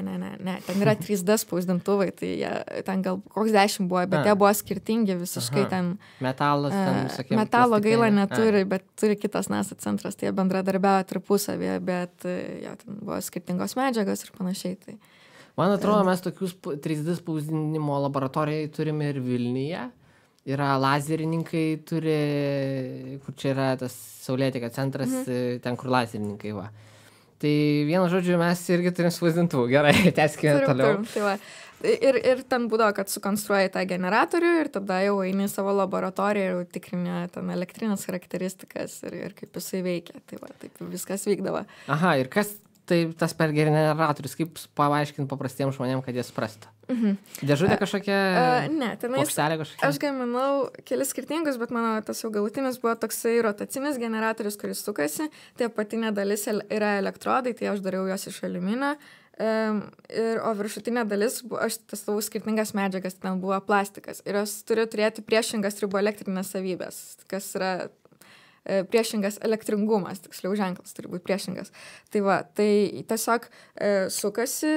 ten yra 3D spausdintuvai, tai ten gal koks 10 buvo, bet jie buvo skirtingi visiškai ten. Metalas ten, sakėm. Metalo gaila neturi, bet turi kitas NASA centras, tai jie bendradarbiavo tarpusavėje, bet ten buvo skirtingos medžiagos ir panašiai. Tai. Man atrodo, mes tokius 3D spausdinimo laboratorijai turime ir Vilniuje. Yra lazerininkai, turi, kur čia yra tas Saulėtekio centras, ten kur lazerininkai va. Tai vienu žodžiu, mes irgi turim spausdintuvų. Gerai, tęskime toliau. Tai va. Ir ten būdavo, kad sukonstruoji tą generatorių ir tada jau eini į savo laboratoriją ir tikrini ten elektrinės charakteristikas ir kaip jisai veikia. Tai va, taip viskas vykdavo. Aha, ir kas tai tas per generatorius, kaip paaiškinti paprastiems žmonėms, kad jie suprastų? Dėžutė kažkokia? Ne, plokštelė kažkokia? Aš gaminau kelis skirtingus, bet mano tas jau galutinis buvo toksai rotacinis generatorius, kuris sukasi. Tai apatinė dalis yra elektrodai, tai aš dariau jos iš aliuminio. O viršutinė dalis, aš testavau skirtingas medžiagas, ten buvo plastikas. Ir jos turi turėti priešingas triboelektrinės savybės, kas yra priešingas elektringumas, tiksliau ženklas turi būti priešingas. Tai va, tai tiesiog sukasi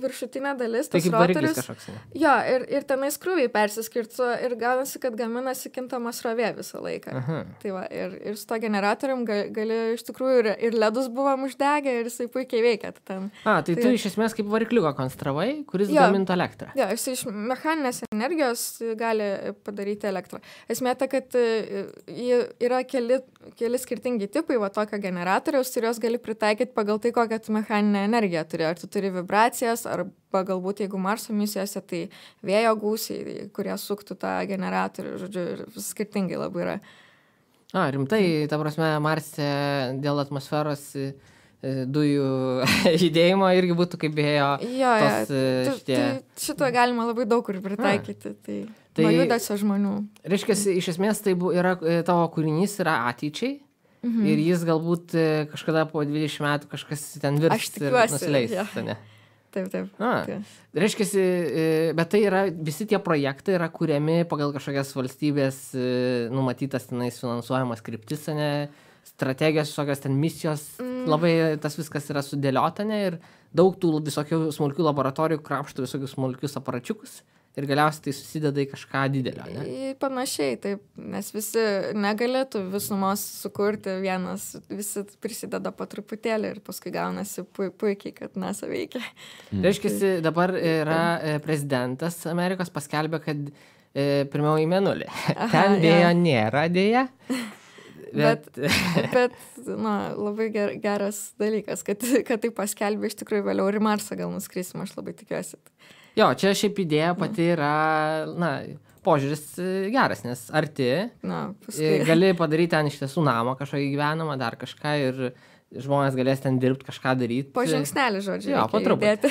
viršutinė dalis, tas rotorius. Jo, ir tenais krūviai persiskirtų ir gaunasi, kad gaminasi kintama srovė visą laiką. Tai va, ir su to generatorium gali iš tikrųjų ir ledus buvom uždegę ir jisai puikiai veikia. Tai tu iš esmės kaip varikliuką konstravai, kuris gamintų elektrą. Jo, jis iš mechaninės energijos gali padaryti elektrą. Esmė ta, kad yra keli skirtingi tipai va tokio generatoriaus ir jos gali pritaikyti pagal tai, kokią tu mechaninę energiją turi. Ar tu turi vibracijas, arba galbūt jeigu Marso misijose, tai vėjo gūsiai, kurie suktų tą generatorių, žodžiu, ir skirtingai labai yra. Rimtai, ta prasme, Marse dėl atmosferos dujų judėjimo irgi būtų kaip vėjo šitie. Šito galima labai daug kur pritaikyti. Tai nuo judesio žmonių. Reiškia, iš esmės tai yra, tavo kūrinys yra ateičiai ir jis galbūt kažkada po 20 metų kažkas ten virs ir nusileis. Taip. Reiškia, bet tai yra, visi tie projektai yra kuriami pagal kažkokias valstybės numatytas tenais finansuojamas kryptis, strategijos, visokios ten misijos, labai tas viskas yra sudėliota, ir daug tų visokių smulkių laboratorijų krapštų visokius smulkius aparačiukus ir galiausiai tai susideda į kažką didelio, ne? Panašiai, taip, nes visi negalėtų visumos sukurti vienas, visi prisideda po truputėlį ir paskui gaunasi puikiai, kad NASA veikia. Reiškia, dabar yra prezidentas Amerikos paskelbė, kad pirmiau į Mėnulį. Ten vėjo nėra dėja. Bet labai geras dalykas, kad tai paskelbė iš tikrųjų vėliau ir į Marsą gal nuskrisim, aš labai tikiuosi. Jo, čia šiaip idėja pati yra, požiūris geras, nes arti, gali padaryti ten iš tiesų namą kažkokį gyvenamą, dar kažką ir žmonės galės ten dirbti, kažką daryti. Po žingsnelį, žodžiu, jo, po truputį.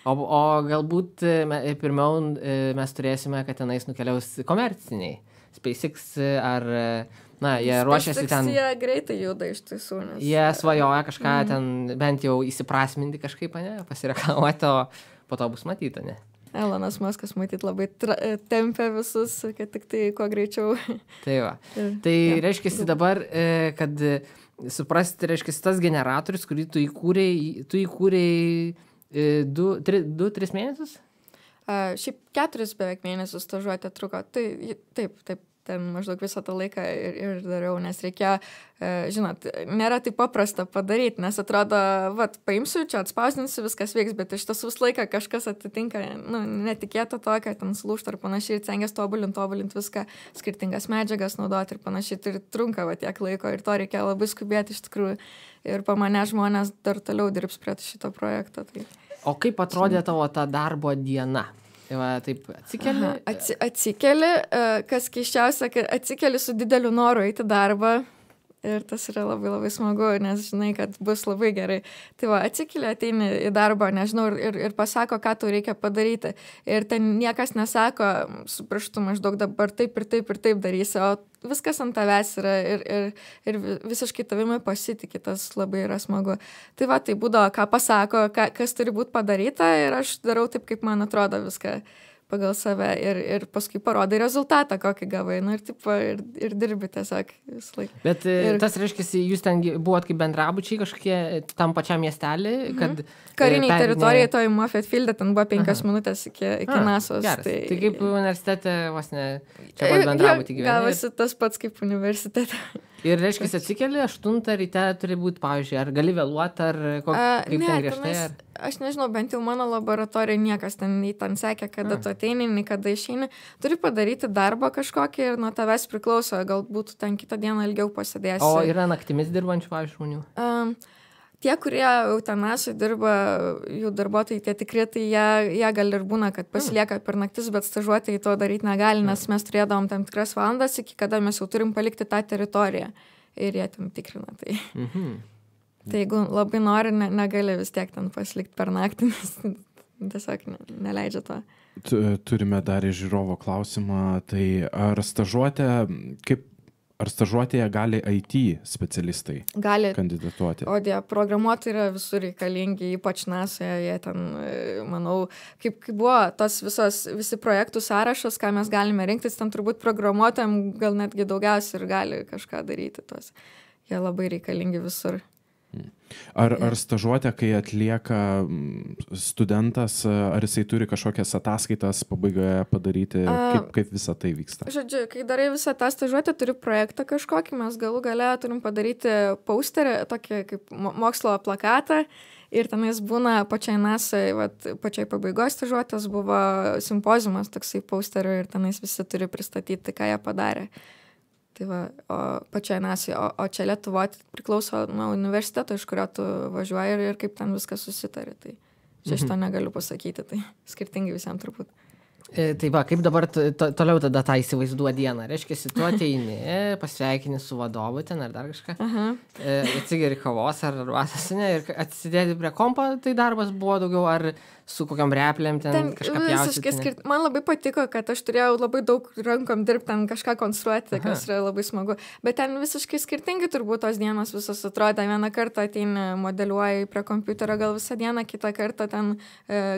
O galbūt pirmiau mes turėsime, kad tenais nukeliaus komerciniai. SpaceX ar... jie ruošiasi ten... Jie greitai juda iš tiesų, nes... Jie svajoja kažką ten bent jau įsiprasminti kažkaip, pasireklamuoti, o po to bus matyta, ne? Elonas Muskas matyt labai tempia visus, kad tik tai kuo greičiau. Tai va. Tai reiškia dabar, kad suprasti, reiškia tas generatorius, kurį tu įkūrei 2-3 mėnesius? Šiaip 4 beveik mėnesius stažuotė truko. Tai taip. Ten maždaug visą tą laiką ir dariau, nes reikėjo, žinot, nėra taip paprasta padaryti, nes atrodo, paimsiu, čia atspausdinsiu, viskas veiks, bet iš tiesų visą laiką kažkas atitinka, netikėto to, kad ten sulūžta ir panašiai, ir cengias tobulinti viską, skirtingas medžiagas naudoti ir panašiai, tai trunka tiek laiko ir to reikia labai skubėti iš tikrųjų, ir po mane žmonės dar toliau dirbs prie šito projekto. Tai. O kaip atrodė tavo ta darbo diena? Taip atsikeli? Atsikeli, kas keiščiausia, kad atsikeli su dideliu noru eiti darbą ir tas yra labai labai smagu, nes žinai, kad bus labai gerai. Tai atsikeli, ateini į darbą, nežinau, ir pasako, ką tau reikia padaryti. Ir ten niekas nesako, su pirštu maždaug dabar taip ir taip darysi, o viskas ant tavęs yra ir visiškai tavimi pasitikė, tas labai yra smagu. Tai tai būdavo, ką pasako, kas turi būti padaryta ir aš darau taip, kaip man atrodo viską pagal save ir paskui parodai rezultatą, kokį gavai, ir dirbi tiesiog visą laiką. Bet tas reiškia, jūs ten buvot kaip bendrabučiai kažkokie tam pačiam miestelį, kad... Kariniai teritorijai toj Moffett Fielde, ten buvo 5 minutės iki NASO's. Geras. Tai kaip universitete, vos ne, čia pat bendrabutį gyveni. Gavosi tas pats kaip universitete. Ir reiškia, atsikeli 8 ryte turi būti, pavyzdžiui, ar gali vėluoti, ar kaip ten griežtai? Aš nežinau, bent jau mano laboratorija niekas ten sekė, kada tu ateini, nei kada išeini. Turi padaryti darbą kažkokį ir nuo tavęs priklauso, galbūt ten kitą dieną ilgiau pasėdėsi. O yra naktimis dirbančių, pavyzdžiui, žmonių? Tie, kurie eutanasui dirba, jų darbuotojai, tie tikri, tai jie gal ir būna, kad pasilieka per naktis, bet stažuotojai to daryti negali, nes mes turėdavom tam tikras valandas, iki kada mes jau turim palikti tą teritoriją ir jie ten tikrina. Tai, tai jeigu labai nori, negali vis tiek ten pasilikti per naktį, nes tiesiog neleidžia to. Turime dar iš žiūrovo klausimą, tai ar stažuotėje gali IT specialistai kandidatuoti? O programuotojai yra visur reikalingi, ypač NASA'je, jie ten, manau, kaip buvo visi projektų sąrašas, ką mes galime rinktis, ten turbūt programuotojam gal netgi daugiausiai ir gali kažką daryti tos. Jie labai reikalingi visur. Ar stažuotė, kai atlieka studentas, ar jisai turi kažkokias ataskaitas pabaigoje padaryti, kaip visa tai vyksta? Žodžiu, kai darai visą tą stažuotę, turi projektą kažkokį, mes galų gale turim padaryti posterį, tokį kaip mokslo plakatą, ir tenais būna pačiai NASA'ai, pačiai pabaigos stažuotės buvo simpoziumas toksai posterių ir tenais visi turi pristatyti, ką jie padarė. Tai o pačiai NASA'ai, o čia Lietuvoje priklauso nuo universiteto, iš kurio tu važiuoji ir kaip ten viskas susitari. Tai čia šito negaliu pasakyti, tai skirtingai visiems turbūt. Tai kaip dabar toliau tada tą įsivaizduoja dieną? Reiškia, tu ateini, pasveikini su vadovu ten ar dar kažką, atsigeri kavos ar arbatos, ir atsidėti prie kompo, tai darbas buvo daugiau ar su kokiam replėm ten kažką pjausyti? Man labai patiko, kad aš turėjau labai daug rankom dirbti, ten kažką konstruoti, kas yra labai smagu. Bet ten visiškai skirtingai turbūt tos dienos visos atrodė. Vieną kartą ateini, modeliuoji prie kompiuterio gal visą dieną, kitą kartą ten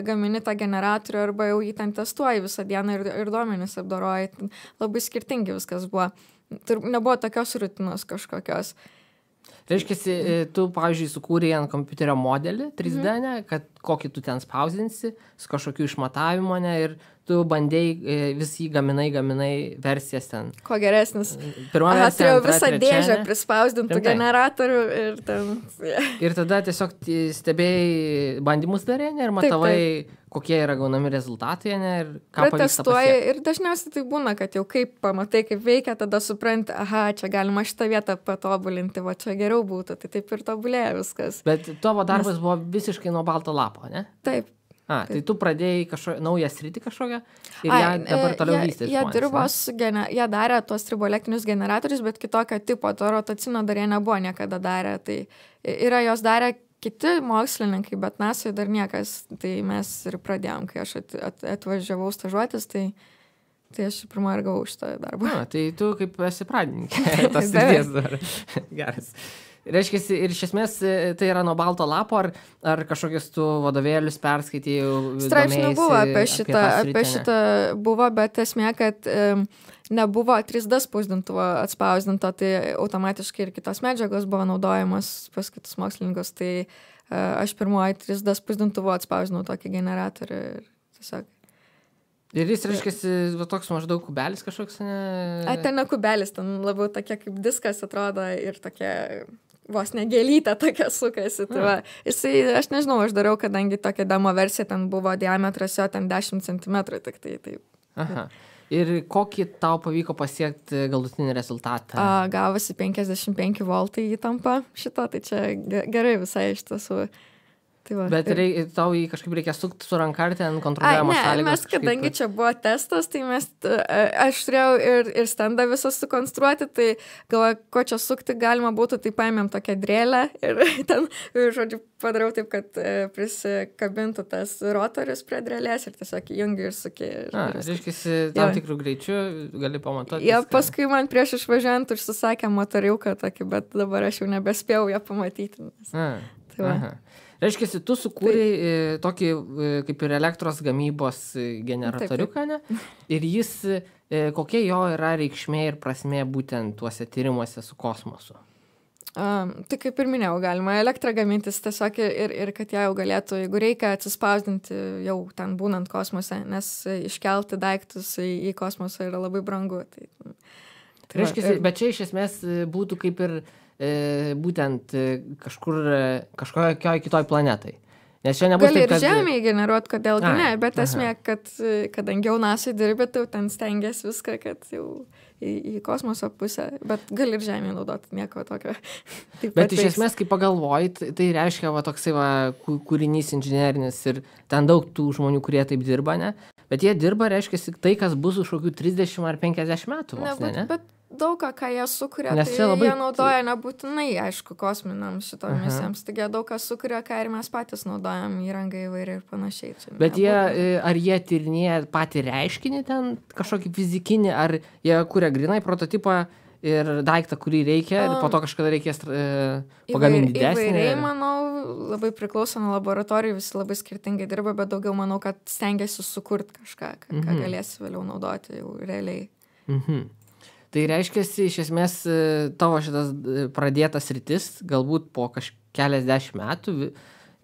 gamini tą generatorių arba jau jį ten testuoji visą dieną ir duomenis apdoroji. Labai skirtingi viskas buvo. Nebuvo tokios rutinos kažkokios. Reiškia, tu, pavyzdžiui, sukūrei ant kompiuterio modelį 3D, kad kokį tu ten spausdinsi, su kažkokiu išmatavimu, ne, ir tu bandėjai vis jį gaminai versijas ten. Kuo geresnis. Pirma Aha, versija, turėjau antra, visą trečia, dėžę ne? prispausdintų Rimtai? generatorių ir ten... Ir tada tiesiog stebėjai bandymus darė, ne, ir matavai, kokie yra gaunami rezultatai, ne, ir ką pavyksta Protestuoji pasiekti. ir dažniausiai tai būna, kad jau kaip pamatai, kaip veikia, tada supranti, aha, čia galima šitą vietą patobulinti, va čia geriau būtų, tai taip ir tobulėja viskas. Bet tavo darbas buvo visiškai nuo balto lapo, ne? Taip. Tai tu pradėjai naują sritį kažkokią ir ją dabar toliau vystys. Jie dirbo jie darė tuos triboelektinius generatorius, bet kitokio tipo, to rotacinio dar jie nebuvo niekada darę. Tai yra jos darę kiti mokslininkai, bet NASA dar niekas. Tai mes ir pradėjom, kai aš atvažiavau stažuotis, tai aš pirmą ir gavau šitą darbą. Tai tu kaip esi pradininkė, tas srities dar. Geras. Reiškia, ir iš esmės tai yra nuo balto lapo, ar kažkokius tu vadovėlius perskaitėjai? Straipsnių buvo apie šitą buvo, bet esmė, kad nebuvo 3D spausdintuvo atspausdinto, tai automatiškai ir kitos medžiagos buvo naudojamos pas kitus mokslininkus, tai aš pirmoji 3D spausdintuvo atspausdinau tokį generatorių ir tiesiog. Ir jis, reiškia, toks maždaug kubelis kažkoks, ne? Ten ne kubelis, ten labiau tokia kaip diskas atrodo ir tokia vos negelytė tokia sukasi. Tai va, aš nežinau, aš dariau, kadangi tokia demo versija, ten buvo diametras jo ten 10 cm, tik tai taip. Aha. Ir kokį tau pavyko pasiekti galutinį rezultatą? Gavosi 55 voltai įtampa šito, tai čia gerai visai iš tiesų. Tai va, bet tau jį kažkaip reikia sukti su ranka ar ten kontroliuojamos sąlygos? Mes, kadangi čia buvo testas, tai aš turėjau ir standą visą sukonstruoti, tai galvoju, ko čia sukti galima būtų, tai paėmėm tokią drėlę ir ten, žodžiu, padariau taip, kad prisikabintų tas rotorius prie drėlės ir tiesiog jungi ir suki. Reiškia, tam tikrų greičių gali pamatuoti. Paskui man prieš išvažiuojant užsisakė motoriuką tokį, bet dabar aš jau nebespėjau ją pamatyti. Reiškia, tu sukūrei tokį kaip ir elektros gamybos generatoriuką, ne? Ir jis, kokia jo yra reikšmė ir prasmė būtent tuose tyrimuose su kosmosu? Tai kaip ir minėjau, galima elektrą gamintis tiesiog ir kad ją jau galėtų, jeigu reikia atsispausdinti jau ten būnant kosmose, nes iškelti daiktus į kosmosą yra labai brangu. Reiškia, bet čia iš esmės būtų kaip ir būtent kažkokioj kitoj planetai. Nes čia nebus gali taip, ir Žemėje generuoti, kodėlgi ne, bet esmė, kad kadangi jau NASA dirbi, tai ten stengiasi viską, kad jau į kosmoso pusę, bet gali ir Žemėje naudoti, nieko tokio. Bet iš esmės, kai pagalvoji, tai reiškia toksai kūrinys inžinerinis ir ten daug tų žmonių, kurie taip dirba, ne? Bet jie dirba, reiškia, tai, kas bus už kokių 30 ar 50 metų. Bet daug ką jie sukuria, nes tai jie naudoja nebūtinai, aišku, kosminiams šito misijams. Taigi daug ką sukuria, ką ir mes patys naudojam įrangą įvairiai ir panašiai. Bet ar jie tyrinėja patį reiškinį ten, kažkokį fizikinį, ar jie kuria grinai prototipą ir daiktą, kurį reikia, ir po to kažkada reikės pagaminti didesnį? Įvairiai, manau, labai priklauso nuo laboratorijų, visi labai skirtingai dirba, bet daugiau manau, kad stengiasi sukurti kažką, ką galėsi vėliau naudoti jau realiai. Tai reiškia, iš esmės, tavo šitas pradėtas rytis, galbūt po keliasdešimt metų,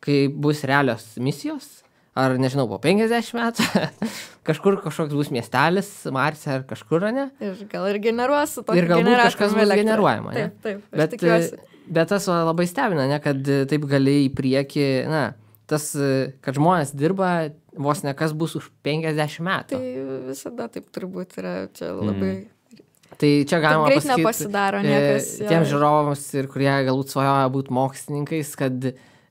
kai bus realios misijos, ar nežinau, po 50 metų, kažkoks bus miestelis, Marse ar kažkur, ne? Ir gal ir generuos su tokį generatorių. Ir galbūt kažkas bus generuojama, ne? Taip, aš tikiuosi. Bet tas labai stebina, ne, kad taip gali į priekį, tas, kad žmonės dirba vos ne kas bus už 50 metų. Tai visada taip turbūt yra čia labai... Tai čia galima greit nepasidaro niekas. Tiems žiūrovams, ir kurie galbūt svajoja būti mokslininkais, kad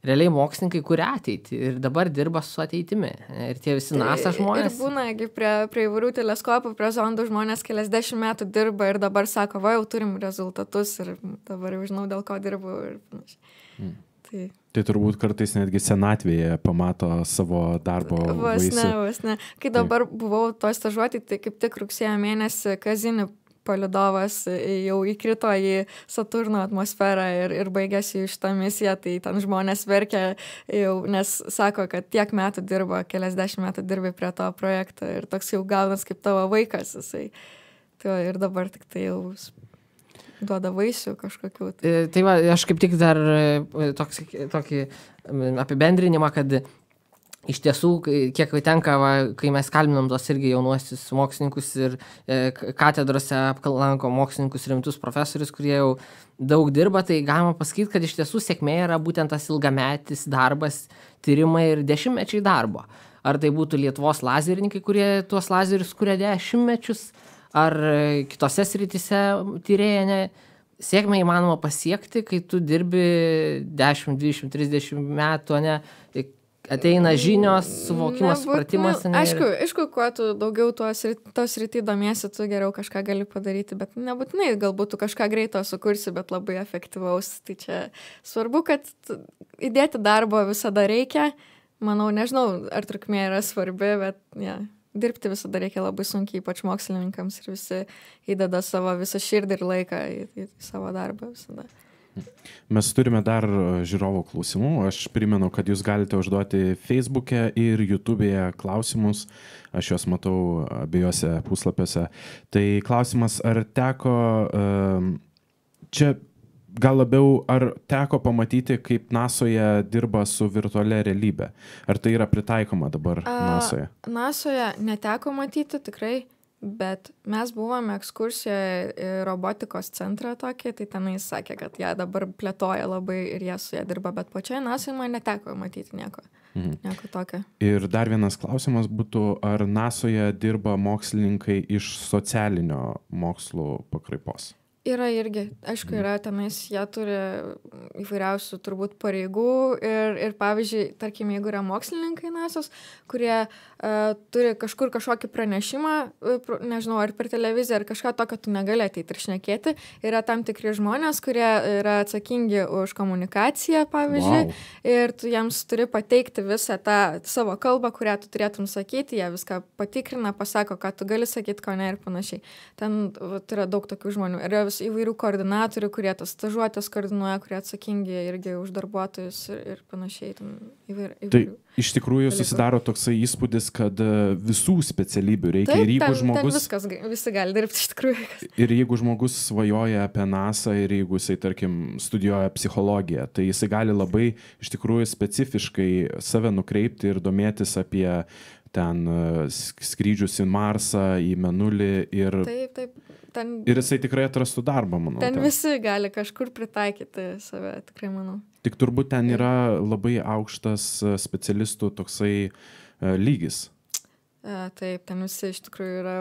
realiai mokslininkai kuria ateitį ir dabar dirba su ateitimi. Ir tie visi NASA žmonės. Ir būna, prie įvairių teleskopų, prie zondų žmonės keliasdešimt metų dirba ir dabar sako, va, jau turim rezultatus ir dabar jau žinau, dėl ko dirbu ir panašiai. Tai turbūt kartais netgi senatvėje pamato savo darbo vaisių. Vos ne. Kai dabar buvau to stažuoti, tai kaip tik rugsėjo mėnesį Kazini palidovas jau įkrito į Saturno atmosferą ir baigėsi šitą misiją, tai ten žmonės verkia jau, nes sako, kad tiek metų dirba, keliasdešimt metų dirbi prie to projekto ir toks jau gaunas kaip tavo vaikas jisai. Tai ir dabar tik tai jau duoda vaisių kažkokių. Tai va, aš kaip tik dar tokį apibendrinimą, kad iš tiesų, kiek tenka, kai mes kalbinam tos irgi jaunuosius mokslininkus ir katedrose aplanko mokslininkus rimtus profesorius, kurie jau daug dirba, tai galima pasakyti, kad iš tiesų sėkmė yra būtent tas ilgametis darbas, tyrimai ir dešimtmečiai darbo. Ar tai būtų Lietuvos lazerininkai, kurie tuos lazerius kuria dešimtmečius, ar kitose srityse tyrėja, sėkmę įmanoma pasiekti, kai tu dirbi 10, 20, 30 metų, ne, ateina žinios, suvokimas, supratimas. Aišku, kuo tu daugiau tos rytį domiesi, tu geriau kažką gali padaryti, bet nebūtinai galbūt tu kažką greito sukursi, bet labai efektyvaus. Tai čia svarbu, kad įdėti darbo visada reikia. Manau, nežinau, ar trukmė yra svarbi, bet dirbti visada reikia labai sunkiai, ypač mokslininkams, ir visi įdeda savo visą širdį ir laiką į savo darbą visada. Mes turime dar žiūrovų klausimų. Aš primenu, kad jūs galite užduoti Facebook'e ir YouTube'e klausimus. Aš juos matau abiejose puslapiuose. Tai klausimas, ar teko čia gal labiau, ar teko pamatyti, kaip NASOje dirba su virtualia realybė? Ar tai yra pritaikoma dabar NASOje? NASOje neteko matyti tikrai. Bet mes buvome ekskursijoje į robotikos centrą tokį, tai tenais sakė, kad jie dabar plėtoja labai ir jie su jie dirba, bet pačioje NASOje man neteko matyti nieko tokio. Ir dar vienas klausimas būtų, ar NASOje dirba mokslininkai iš socialinio mokslų pakraipos? Yra irgi, aišku, yra tenais, jie turi įvairiausių turbūt pareigų ir pavyzdžiui, tarkim, jeigu yra mokslininkai NASOs, kurie turi kažkur kažkokį pranešimą, nežinau, ar per televiziją, ar kažką tokio tu negali ateiti ir šnekėti, yra tam tikri žmonės, kurie yra atsakingi už komunikaciją, pavyzdžiui, ir tu jiems turi pateikti visą tą savo kalbą, kurią tu turėtum sakyti, jie viską patikrina, pasako, ką tu gali sakyti, ko ne ir panašiai. Ten yra daug tokių žmonių. Yra įvairių koordinatorių, kurie tas stažuotės koordinuoja, kurie atsakingi irgi už darbuotojus ir panašiai. Įvairių. Tai iš tikrųjų susidaro toksai įspūdis, kad visų specialybių reikia. Taip, ir jeigu žmogus, viskas, visi gali dirbti iš tikrųjų. Ir jeigu žmogus svajoja apie NASA ir jeigu jisai, tarkim, studijuoja psichologiją, tai jisai gali labai iš tikrųjų specifiškai save nukreipti ir domėtis apie ten skrydžius į Marsą, į Mėnulį ir... Taip. Ir jisai tikrai atrastų darbą, manau. Ten visi gali kažkur pritaikyti save, tikrai manau. Tik turbūt ten yra labai aukštas specialistų toksai lygis. Taip, ten visi iš tikrųjų yra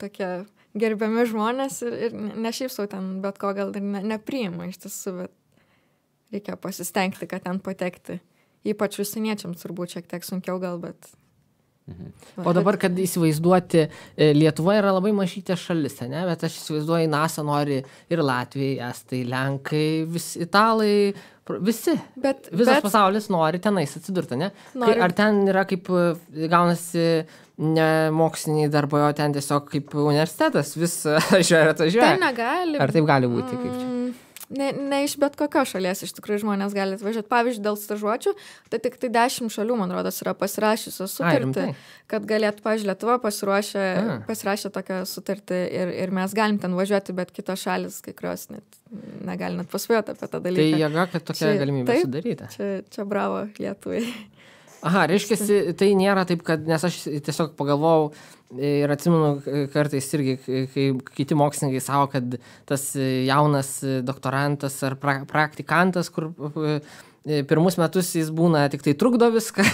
tokie gerbiami žmonės ir ne šiaip sau ten bet ko gal ir nepriima iš tiesų, bet reikia pasistengti, kad ten patekti. Ypač užsieniečiams turbūt šiek tiek sunkiau gal, bet... O dabar, kad įsivaizduoti, Lietuva yra labai mažytė šalis, ne? Bet aš įsivaizduoju, NASA nori ir Latvijai, Estai, Lenkai, italai, visi. Visas pasaulis nori tenais atsidurti, ne? Ar ten yra kaip gaunasi ne moksliniai darbai, o ten tiesiog kaip universitetas, vis atvažiuoja. Ten negali. Ar taip gali būti? Kaip čia? Ne iš bet kokios šalies iš tikrųjų žmonės gali atvažiuoti. Pavyzdžiui, dėl stažuočių, tai tik 10 šalių, man rodos, yra pasirašysios sutartį, kad galėtų, pavyzdžiui, Lietuva pasirašė tokią sutartį ir mes galim ten važiuoti, bet kitos šalis, kai kurios negali net pasvajoti apie tą dalyką. Tai jėga, kad tokia galimybė sudaryta. Čia bravo Lietuvai. Aha, reiškia, tai nėra taip, kad, nes aš tiesiog pagalvojau ir atsimenu kartais irgi, kai kiti mokslininkai savo, kad tas jaunas doktorantas ar praktikantas, kur pirmus metus jis būna tik tai trukdo viską,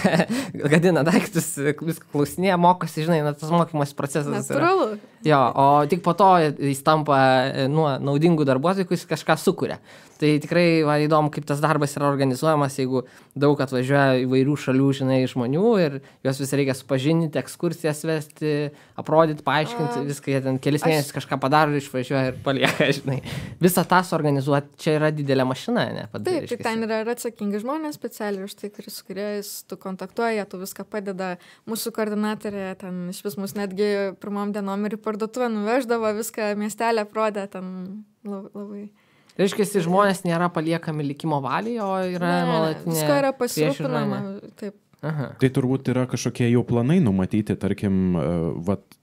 gadina daiktus, viską klausinėja, mokosi, žinai, tas mokymas procesas. Natūralu. Jo, o tik po to jis tampa naudingų darbuotojų, kuris kažką sukuria. Tai tikrai įdomu, kaip tas darbas yra organizuojamas, jeigu daug atvažiuoja įvairių šalių, žinai, žmonių ir juos vis reikia supažinti, ekskursijas vesti, aprodyti, paaiškinti, viską jie ten kelis mėnesius kažką padaro, išvažiuoja ir palieka, žinai. Visą tą suorganizuoti, čia yra didelė mašina, ne? Taip, tai ten yra atsakingi žmonės specialiai už tai, su kuriais tu kontaktuoji, tu viską padeda. Mūsų koordinatorė ten iš vis mus netgi pirmom dienom ir į parduotuvę nuveždavo, viską miestelę aprodė, ten labai... Reiškia, žmonės nėra paliekami likimo valiai, o yra nuolatinė... Visko yra pasirūpinama, taip. Aha. Tai turbūt yra kažkokie jau planai numatyti, tarkim,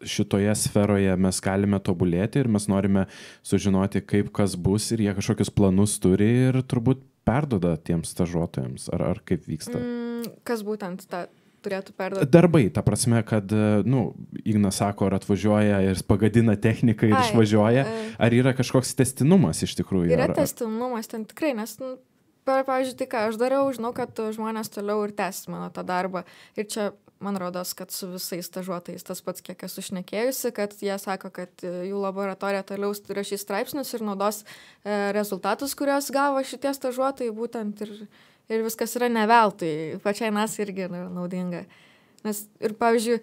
šitoje sferoje mes galime tobulėti ir mes norime sužinoti, kaip kas bus ir jie kažkokius planus turi ir turbūt perduoda tiems stažuotojams, ar kaip vyksta? Kas būtent turėtų perduoti. Darbai, ta prasme, kad, Ignas sako, ar atvažiuoja ir pagadina techniką ir išvažiuoja, ar yra kažkoks tęstinumas iš tikrųjų? Yra tęstinumas ten tikrai, nes, pavyzdžiui, tai ką aš dariau, žinau, kad žmonės toliau ir tęs mano tą darbą. Ir čia, man rodos, kad su visais stažuotojais tas pats, kiek esu šnekėjusi, kad jie sako, kad jų laboratorija toliau rašys straipsnius ir naudos rezultatus, kuriuos gavo šitie stažuotojai būtent ir viskas yra ne veltui. Pačiai nas irgi yra naudinga. Nes ir, pavyzdžiui,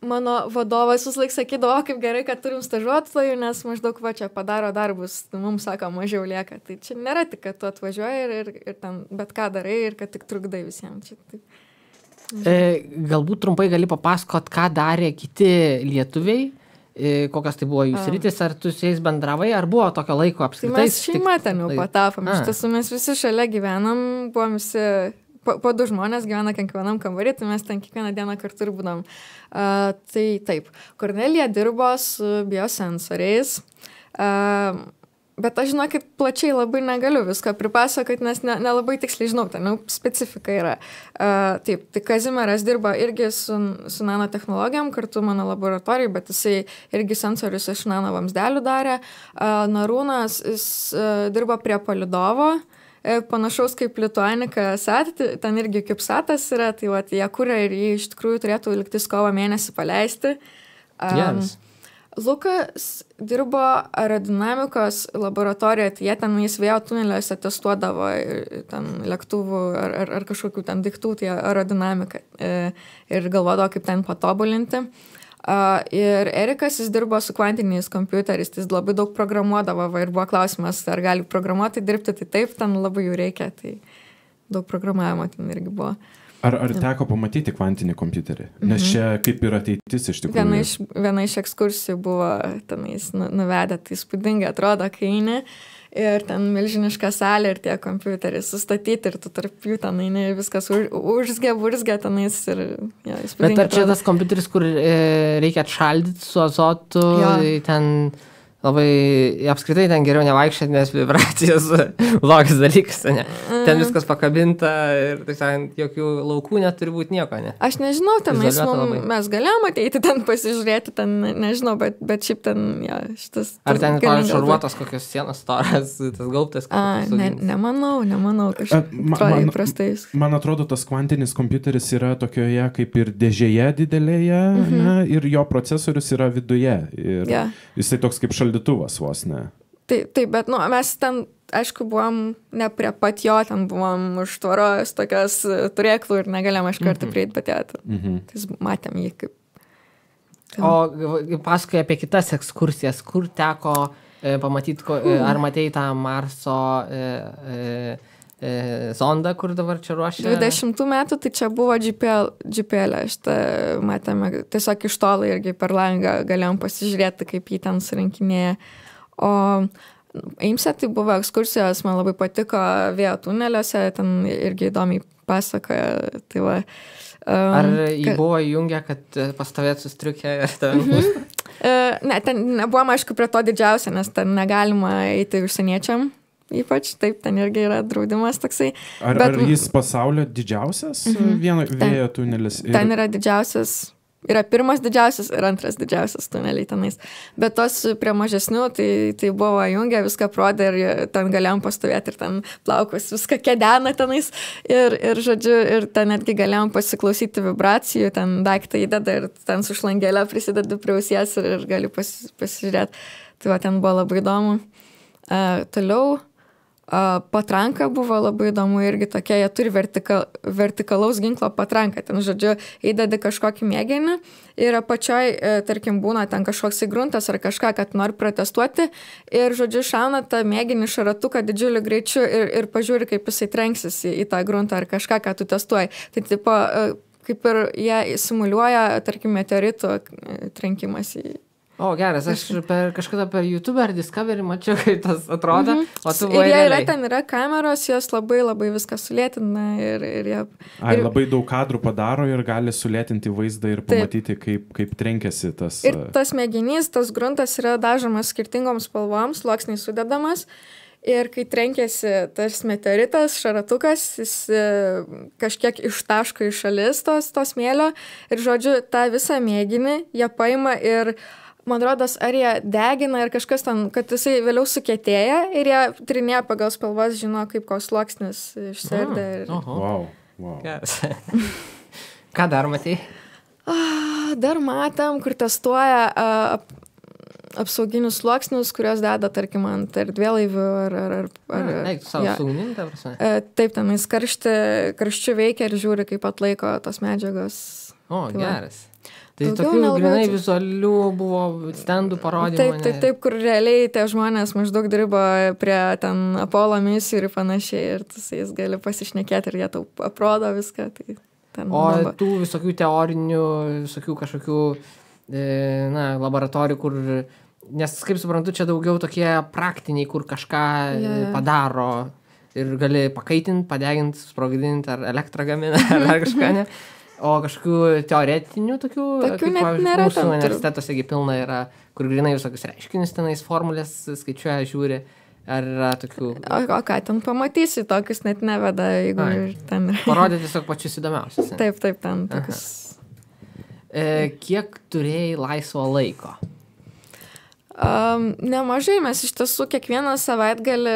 mano vadovas visąlaik sakydavo, kaip gerai, kad turim stažuotojų, nes maždaug čia padaro darbus, mums sako, mažiau lieka. Tai čia nėra tik, kad tu atvažiuoji ir ten bet ką darai ir kad tik trukdai visiems. Čia, tai... Galbūt trumpai gali papasakot, ką darė kiti lietuviai, kokios tai buvo jų sritis, ar tu su jais bendravai, ar buvo tokio laiko apskritai? Tai mes šeima ten jau patapom, iš tiesų mes visi šalia gyvenam, buvom visi... Po 2 žmonės gyvena kiekvienam kambarį, tai mes ten kiekvieną dieną kartu ir būdam. Tai taip, Kornelija dirbo su biosensoriais, bet aš žinau, kad plačiai labai negaliu visko pripasakoti, nes nelabai tiksliai žinau, ten specifika yra. Taip, tai Kazimieras dirba irgi su nanotechnologijom, kartu mano laboratorijai, bet jisai irgi sensorius iš nanovamsdelių darė. Narūnas, jis dirba prie palidovo, panašaus kaip Lituanika Sat, ten irgi CubeSatas yra, tai jie kuria ir jį iš tikrųjų turėtų liktis kovo mėnesį paleisti. Yes. Lukas dirbo aerodinamikos laboratorijoje, tai jie ten vėjo tuneliuose testuodavo ten lėktuvų ar kažkokių ten daiktų, tai aerodinamiką ir galvodavo, kaip ten patobulinti. Ir Erikas, jis dirbo su kvantiniais kompiuteriais, jis labai daug programuodavo ir buvo klausimas, ar gali programuoti dirbti, tai taip, ten labai jų reikia, tai daug programavimo ten irgi buvo. Ar teko pamatyti kvantinį kompiuterį? Nes čia kaip ir ateitis iš tikrųjų. Viena iš ekskursijų buvo tenais nuvedę, tai įspūdingai atrodo, kai eini. Ir ten milžiniška salė ir tie kompiuteriai sustatyti ir tu tarp jų ten eini viskas burzgia tenais ir įspūdingai. Bet ar čia tas kompiuteris, kur reikia atšaldyti su azotu, ten labai, apskritai ten geriau nevaikščioti, nes vibracijos blogas dalykas, ne? Ten viskas pakabinta ir, tai sakant, jokių laukų neturi būti nieko, ne? Aš nežinau, mes galėjom ateiti ten pasižiūrėti, ten nežinau, bet šiaip ten, šitas... Ar ten šarvuotos kokios sienos storas, tas gaubtas? Nemanau, kažkaip įprastai. Man atrodo, tas kvantinis kompiuteris yra tokioje kaip ir dėžėje didelėje, ir jo procesorius yra viduje. Ir jisai toks kaip šaldytuvas vos, ne? Taip, bet mes ten, aišku, buvom ne prie pat jo, ten buvom už tvoros tokios turėklų ir negalėjom iš karto prieiti, bet tai matėm jį kaip... O pasakoja apie kitas ekskursijas, kur teko pamatyti, ar matei tą Marso zondą, kur dabar čia ruošia? 20 metų, tai čia buvo GPL, šitą matėme, tiesiog iš tolo irgi per langą galėjom pasižiūrėti, kaip jį ten surinkinėja. O Eimse tai buvo ekskursijos, man labai patiko vėjo tuneliuose, ten irgi įdomiai pasakoja. Tai va, ar jį buvo įjungę, kad pastovėt sustriukę ir tave nupūstų? Ne, ten nebuvom, aišku, prie to didžiausia, nes ten negalima eiti užsieniečiam. Ypač, taip, ten irgi yra draudimas toksai. Ar jis pasaulio didžiausias vėjo tunelis? Ten yra didžiausias, yra pirmas didžiausias ir antras didžiausias tuneliai tenais. Bet tos prie mažesnių, tai buvo jungia, viską prodė ir ten galėjom pastovėti ir ten plaukus, viską kedena tenais. Ir žodžiu, ir ten netgi galėjom pasiklausyti vibracijų, ten daiktą įdeda ir ten su šlangelė prisideda prie ausies ir gali pasižiūrėti. Tai va, ten buvo labai įdomu. Toliau patranka buvo labai įdomu irgi tokia, jie turi vertikalaus ginklo patranką, ten, žodžiu, įdedi kažkokį mėginį ir apačioj, tarkim, būna ten kažkoks įgruntas ar kažką, kad nori protestuoti ir, žodžiu, šauna tą mėginį šaratuką didžiuliu greičiu ir pažiūri, kaip jisai trenksis į tą gruntą ar kažką, ką tu testuoji. Tai tipo, kaip ir jie simuliuoja, tarkim, meteoritų trenkimas į... O, geras, aš kažkada per YouTube ar Discovery mačiau, kaip tas atrodo, o tu buvai realiai. Ir realiai. ten yra kameros, jos labai viską sulėtina ir jie... Labai daug kadrų padaro ir gali sulėtinti vaizdą ir pamatyti, kaip trenkiasi tas... Ir tas mėginys, tas gruntas yra dažomas skirtingoms spalvoms, sluoksniai sudedamas ir kai trenkėsi tas meteoritas, šaratukas, jis kažkiek ištaško į šalis to smėlio ir, žodžiu, tą visą mėginį jie paima ir man rodos, ar jie degina ir kažkas ten, kad jisai vėliau sukietėja ir jie trinėja pagal spalvas, žino, kaip koks sluoksnis išsiardė. Wow. Yes. Ką dar matei? Dar matėm, kur testuoja apsauginius sluoksnius, kurios deda, tarkim, ant erdvėlaivių ar Eik, tu savo saugunim, ta prasme? Taip, tenais karščiu veikia ir žiūri, kaip atlaiko tos medžiagos. Geras. Tai tokių grinai vizualių buvo stendų parodymų. Taip, kur realiai tie žmonės maždaug dirbo prie ten Apollo misijų ir panašiai, ir tu su jais gali pasišnekėti ir jie tau aprodo viską. Tai tų visokių teorinių, visokių kažkokių laboratorijų, kur, nes kaip suprantu, čia daugiau tokie praktiniai, kur kažką padaro ir gali pakaitinti, padeginti, sprogdinti ar elektrą gamina ar kažką, ne? O kažkokių teoretinių tokių kaip, net nėra. Mūsų universitetuose pilna yra, kur grinai visokius reiškinius tenais formulės skaičiuoja, žiūri, ar yra tokių... O ką ten pamatysi, tokius net neveda, jeigu ten... Parodė tiesiog pačius įdomiausius. Taip, ten tokius... Kiek turėjai laisvo laiko? Nemažai, mes iš tiesų kiekvieną savaitgalį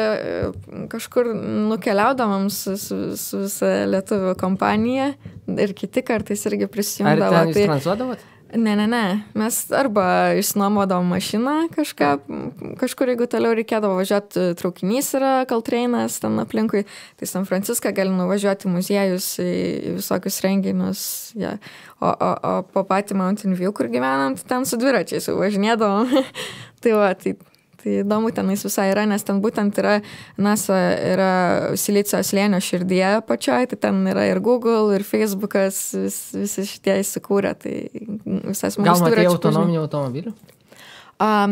kažkur nukeliaudavom su visa lietuvių kompanija ir kiti kartais irgi prisijungdavo. Ar ten jūs tranzuodavot? Ne. Mes arba išsinuomodavom mašiną kažkur, jeigu toliau reikėdavo važiuoti, traukinys yra Caltrainas ten aplinkui, tai San Franciską gali nuvažiuoti muziejus, į visokius renginius. Ja. O po patį Mountain View, kur gyvenam, ten su dviračiais važinėdavom. Tai įdomu tenais visai yra, nes ten būtent yra NASA yra Silicio slėnio širdyje pačioj, tai ten yra ir Google, ir Facebookas, visi šitie įsikūrė, tai visas mūsų dviračių. Gal matėjai autonominių automobilių?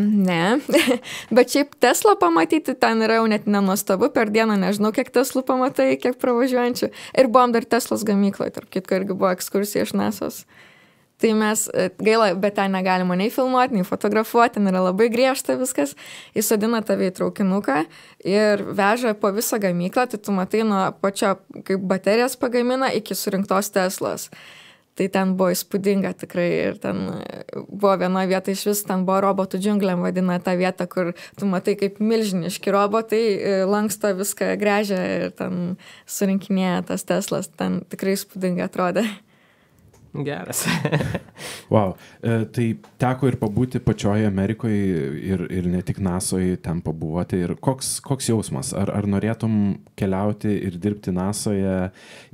Ne, bet šiaip Tesla pamatyti ten yra jau net nenuostabu, per dieną nežinau, kiek Teslų pamatai, kiek pravažiuojančių. Ir buvom dar Teslos gamykloje, tarp kitko irgi buvo ekskursija iš NASA's. Tai mes, gaila, bet ten negalima nei filmuoti, nei fotografuoti, ten yra labai griežta viskas. Įsodina tave į traukinuką ir veža po visą gamyklą, tai tu matai nuo pačio, kaip baterijas pagamina, iki surinktos Teslos. Tai ten buvo įspūdinga tikrai ir ten buvo viena vieta iš vis, ten buvo robotų džiungliam vadina tą vietą, kur tu matai kaip milžiniški robotai, lanksto viską, gręžia ir ten surinkinėja tas Teslas, ten tikrai įspūdingai atrodė. Geras. Wow. Tai teko ir pabūti pačioje Amerikoje ir ne tik NASOje ten pabuvoti. Ir koks jausmas? Ar norėtum keliauti ir dirbti NASOje?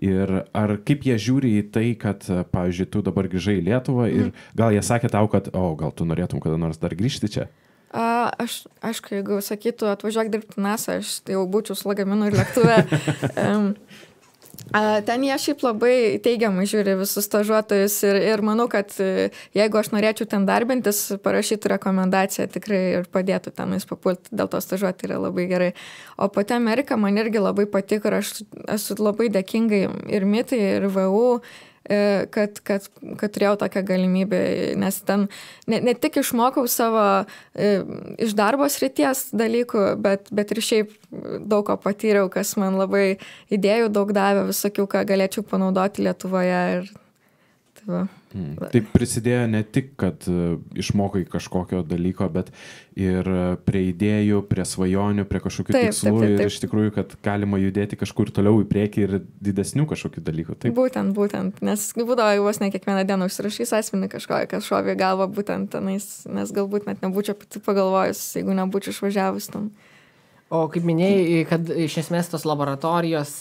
Ir ar kaip jie žiūri į tai, kad, pavyzdžiui, tu dabar grįžai į Lietuvą ir gal jie sakė tau, kad, gal tu norėtum kada nors dar grįžti čia? Aš, aišku, jeigu sakytų atvažiuok dirbti NASA, aš jau būčiau su lagaminu ir lėktuve. Ten jie šiaip labai teigiamai žiūri visus stažuotojus ir manau, kad jeigu aš norėčiau ten darbintis, parašytų rekomendaciją tikrai ir padėtų tenais papulti, dėl to stažuoti yra labai gerai. O pati Amerika man irgi labai patiko ir aš esu labai dėkingai ir MIT, ir VU, kad turėjau tokią galimybę, nes ten ne tik išmokau savo iš darbo srities dalykų, bet ir šiaip daug ko patyriau, kas man labai idėjų daug davė, visokių, ką galėčiau panaudoti Lietuvoje. Ir tai va. Tai prisidėjo ne tik, kad išmokai kažkokio dalyko, bet ir prie idėjų, prie svajonių, prie kažkokių tikslų ir iš tikrųjų, kad galima judėti kažkur toliau į priekį ir didesnių kažkokių dalykų. Taip? Būtent, nes būdavo vos ne kiekvieną dieną užsirašys asmenį kažkokią, kas šovė galvą būtent tenais, nes galbūt net nebūčiau pati pagalvojus, jeigu nebūčiau išvažiavus tam. O kaip minėjai, kad iš esmės tos laboratorijos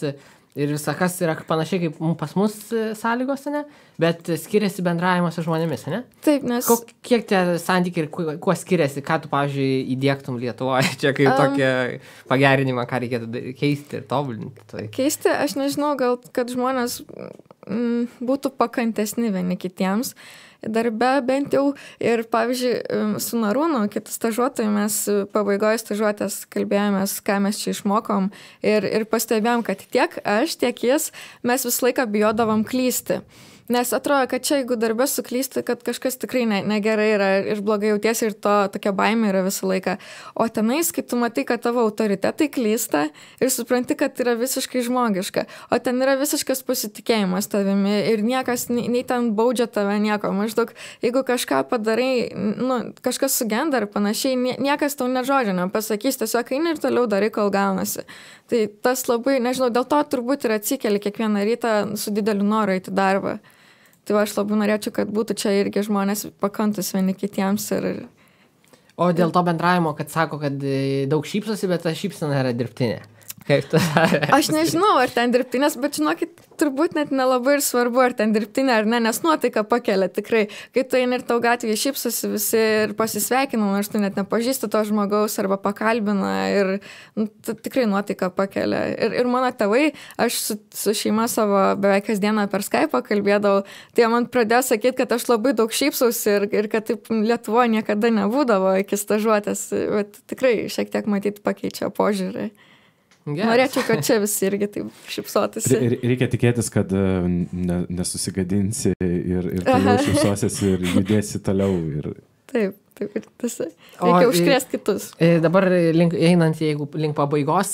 ir visakas yra panašiai kaip pas mus sąlygos, ne? Bet skiriasi bendravimas su žmonėmis, ne? Taip, nes... Kiek tie santykiai ir kuo skiriasi, ką tu, pavyzdžiui, įdiegtum Lietuvoje, čia kaip tokia pagerinimą, ką reikėtų keisti ir tobulinti? Tai. Keisti, aš nežinau, gal kad žmonės būtų pakantesni vieni kitiems, darbe bent jau. Ir pavyzdžiui, su Narūnu, kitų stažuotojų, mes pabaigoje stažuotės kalbėjomės, ką mes čia išmokom ir pastebėjom, kad tiek aš, tiek jis, mes visą laiką bijodavom klysti. Nes atrodo, kad čia, jeigu darbė suklysti, kad kažkas tikrai negerai yra ir blogai jautiesi ir to tokia baimė yra visą laiką. O tenais, kai tu matai, kad tavo autoritetai klysta ir supranti, kad yra visiškai žmogiška. O ten yra visiškas pasitikėjimas tavimi ir niekas, nei ten baudžia tave nieko. Maždaug, jeigu kažką padarai, kažkas sugenda ar panašiai, niekas tau net žodžio nepasakys, tiesiog eini ir toliau darai, kol gaunasi. Tai tas labai, nežinau, dėl to turbūt ir atsikeli kiekvieną rytą su dideliu noru eiti darbą. Tai aš labai norėčiau, kad būtų čia irgi žmonės pakantus vieni kitiems. O dėl to bendravimo, kad sako, kad daug šypsosi, bet ta šypsena yra dirbtinė. Kaip tu? Aš nežinau, ar ten dirbtinės, bet žinokit, turbūt net nelabai ir svarbu, ar ten dirbtinė ar ne, nes nuotaika pakelia tikrai. Kai tu eini ir tau gatvėje šypsosi visi ir pasisveikina, nors tu net nepažįsti to žmogaus arba pakalbina ir tikrai nuotaika pakelia. Ir mano tėvai, aš su šeima savo beveik kasdieną per Skype'ą kalbėdavau, tai man pradėjo sakyti, kad aš labai daug šypsausi ir kad taip Lietuvoje niekada nebūdavo iki stažuotės, bet tikrai šiek tiek matyti pakeičia požiūrį. Yes. Norėčiau, kad čia visi irgi taip šypsotųsi. Reikia tikėtis, kad nesusigadinsi ir toliau šypsosiesi ir judėsi toliau. Taip, ir tas. Reikia užkrėsti kitus. Dabar einant, jeigu link pabaigos,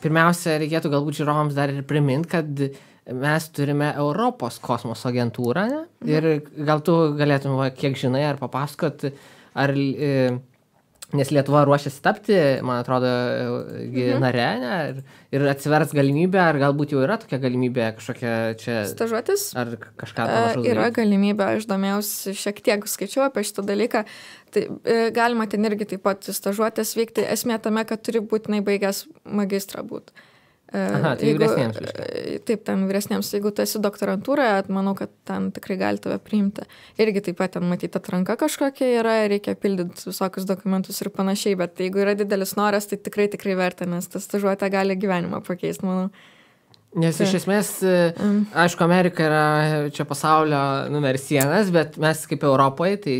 pirmiausia, reikėtų galbūt žiūrovams dar ir priminti, kad mes turime Europos kosmoso agentūrą, ne? Ir gal tu galėtum, kiek žinai, ar papasakot, ar... Nes Lietuva ruošiasi tapti, man atrodo, nare, ne? Ir atsivers galimybė, ar galbūt jau yra tokia galimybė kažkokia čia... Stažuotis? Ar kažką panašaus? Yra galimybė, aš domėjausi šiek tiek, skaičiau apie šitą dalyką. Tai galima ten irgi taip pat stažuotis vykti. Esmė tame, kad turi būtinai baigęs magistrą būti. Aha, tai vyresniems. Taip, ten vyresniems. Jeigu tu esi doktorantūroje, manau, kad ten tikrai gali tave priimti. Irgi taip pat ten matyti atranka kažkokia yra, reikia pildyti visokius dokumentus ir panašiai, bet jeigu yra didelis noras, tai tikrai verta, nes tas stažuotė gali gyvenimą pakeisti, manau. Nes iš esmės, aišku, Amerika yra čia pasaulio numeris 1, bet mes kaip Europoje, tai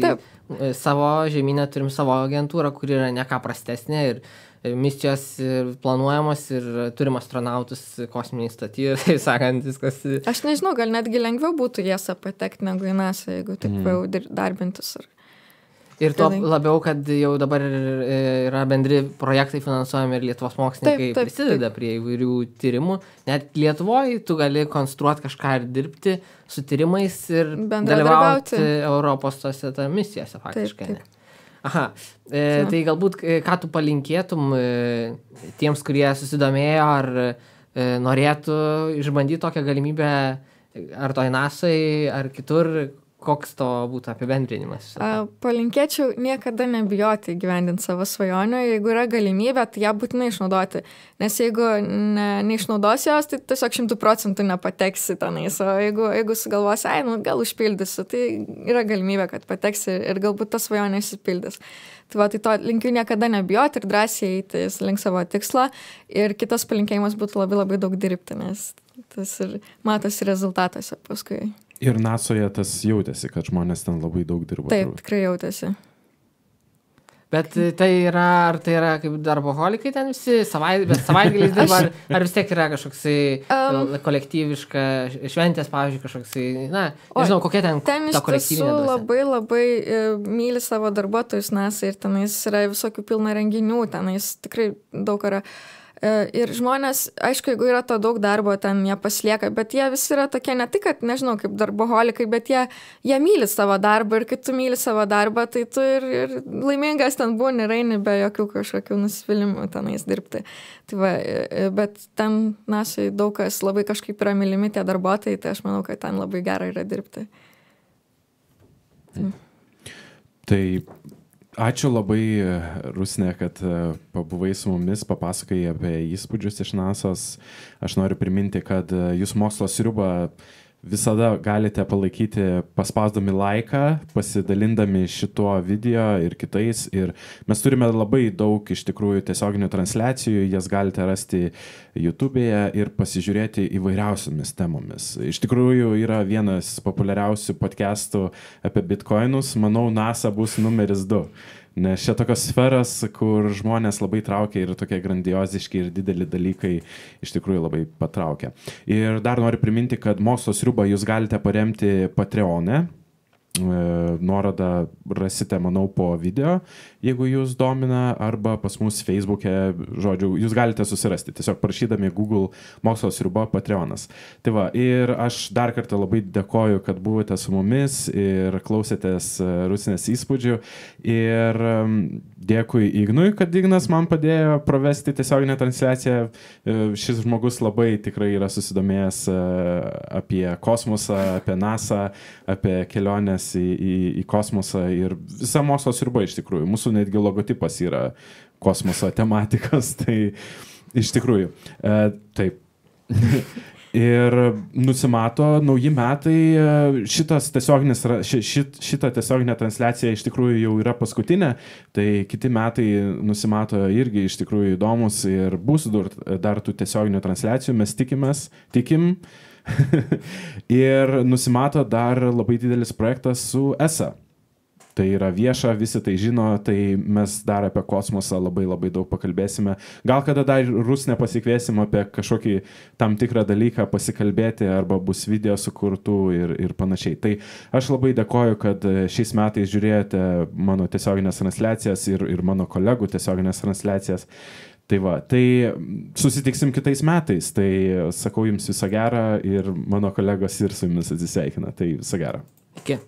savo žemynę turim savo agentūrą, kuri yra ne ką prastesnė ir misijos planuojamos ir turim astronautus kosminiai stotyje, tai sakant, viskas... Aš nežinau, gal netgi lengviau būtų jas patekti negu į NASA, jeigu taip jau darbintis. Ir to labiau, kad jau dabar yra bendri projektai finansuojami ir Lietuvos mokslininkai prisideda prie įvairių tyrimų. Net Lietuvoje tu gali konstruoti kažką ir dirbti su tyrimais ir dalyvauti Europos tose misijose faktiškai. Taip. Aha, tai galbūt ką tu palinkėtum tiems, kurie susidomėjo ar norėtų išbandyti tokią galimybę ar toj NASA'ai, ar kitur, koks to būtų apibendrinimas? Palinkėčiau niekada nebijoti įgyvendinti savo svajonių, jeigu yra galimybė, tai ją būtinai išnaudoti, nes jeigu neišnaudosi jos, tai tiesiog 100% nepateksi tenais, o jeigu sugalvosi, gal užpildysiu, tai yra galimybė, kad pateksi ir galbūt ta svajonė išsipildys. Tai to linkiu niekada nebijoti ir drąsiai eiti link savo tikslo ir kitas palinkėjimas būtų labai labai daug dirbti, nes tas ir matosi rezultatuose paskui. Ir NASA'oje tas jautėsi, kad žmonės ten labai daug dirbo. Taip, tikrai jautėsi. Bet tai yra, ar tai yra kaip darboholikai ten visi, bet savaitgaliais dirba, ar vis tiek yra kažkoksai kolektyviška šventės, pavyzdžiui, kažkoksai, nežinau, kokia ten ta kolektyvinė dvasia. Ten labai labai myli savo darbuotojus NASA ir tenais yra visokių pilna renginių, tenais tikrai daug yra. Ir žmonės, aišku, jeigu yra to daug darbo, ten jie paslieka, bet jie visi yra tokie ne tik, kad, nežinau, kaip darboholikai, bet jie myli savo darbą ir kai tu myli savo darbą, tai tu ir laimingas ten būni ir eini be jokių kažkokių nusivylimų tenais dirbti. Tai bet ten NASA'ai daug kas labai kažkaip yra mylimi tie darbuotojai, tai aš manau, kad ten labai gera yra dirbti. Tai ačiū labai, Rusne, kad pabuvai su mumis, papasakai apie įspūdžius iš NASA'os. Aš noriu priminti, kad jūs mokslo sriubą visada galite palaikyti paspausdami laiką, pasidalindami šituo video ir kitais. Ir mes turime labai daug iš tikrųjų tiesioginių transliacijų, jas galite rasti YouTube'e ir pasižiūrėti įvairiausiomis temomis. Iš tikrųjų yra vienas populiariausių podcastų apie bitcoinus. Manau, NASA bus numeris 2. Nes čia tokios sferas, kur žmonės labai traukia ir tokie grandioziški ir dideli dalykai iš tikrųjų labai patraukia. Ir dar noriu priminti, kad Mokslo sriubą jūs galite paremti Patreon'e. Nuorodą rasite, manau, po video, jeigu jūs domina, arba pas mus Facebook'e, žodžiu, jūs galite susirasti, tiesiog prašydami Google Mokslo sriuba Patreonas. Tai va, ir aš dar kartą labai dėkoju, kad buvote su mumis ir klausėtės Rusnės įspūdžių. Ir dėkui Ignui, kad Ignas man padėjo pravesti tiesioginę transliaciją. Šis žmogus labai tikrai yra susidomėjęs apie kosmosą, apie NASA, apie keliones į kosmosą ir visa Mokslo sriuba iš tikrųjų. Mūsų netgi logotipas yra kosmoso tematikos, tai iš tikrųjų. Taip. Ir nusimato nauji metai, šita tiesioginė transliacija iš tikrųjų jau yra paskutinė, tai kiti metai nusimato irgi iš tikrųjų įdomus ir bus dar tų tiesioginių transliacijų, mes tikim. Ir nusimato dar labai didelis projektas su ESA. Tai yra vieša, visi tai žino, tai mes dar apie kosmosą labai daug pakalbėsime. Gal kada dar Rusnę pasikviesim apie kažkokį tam tikrą dalyką pasikalbėti, arba bus video sukurtų ir panašiai. Tai aš labai dėkoju, kad šiais metais žiūrėjote mano tiesioginės transliacijas ir mano kolegų tiesioginės transliacijas. Tai va, tai susitiksim kitais metais, tai sakau jums visą gerą ir mano kolegos ir su jumis atsisveikina, tai visą gerą. Iki.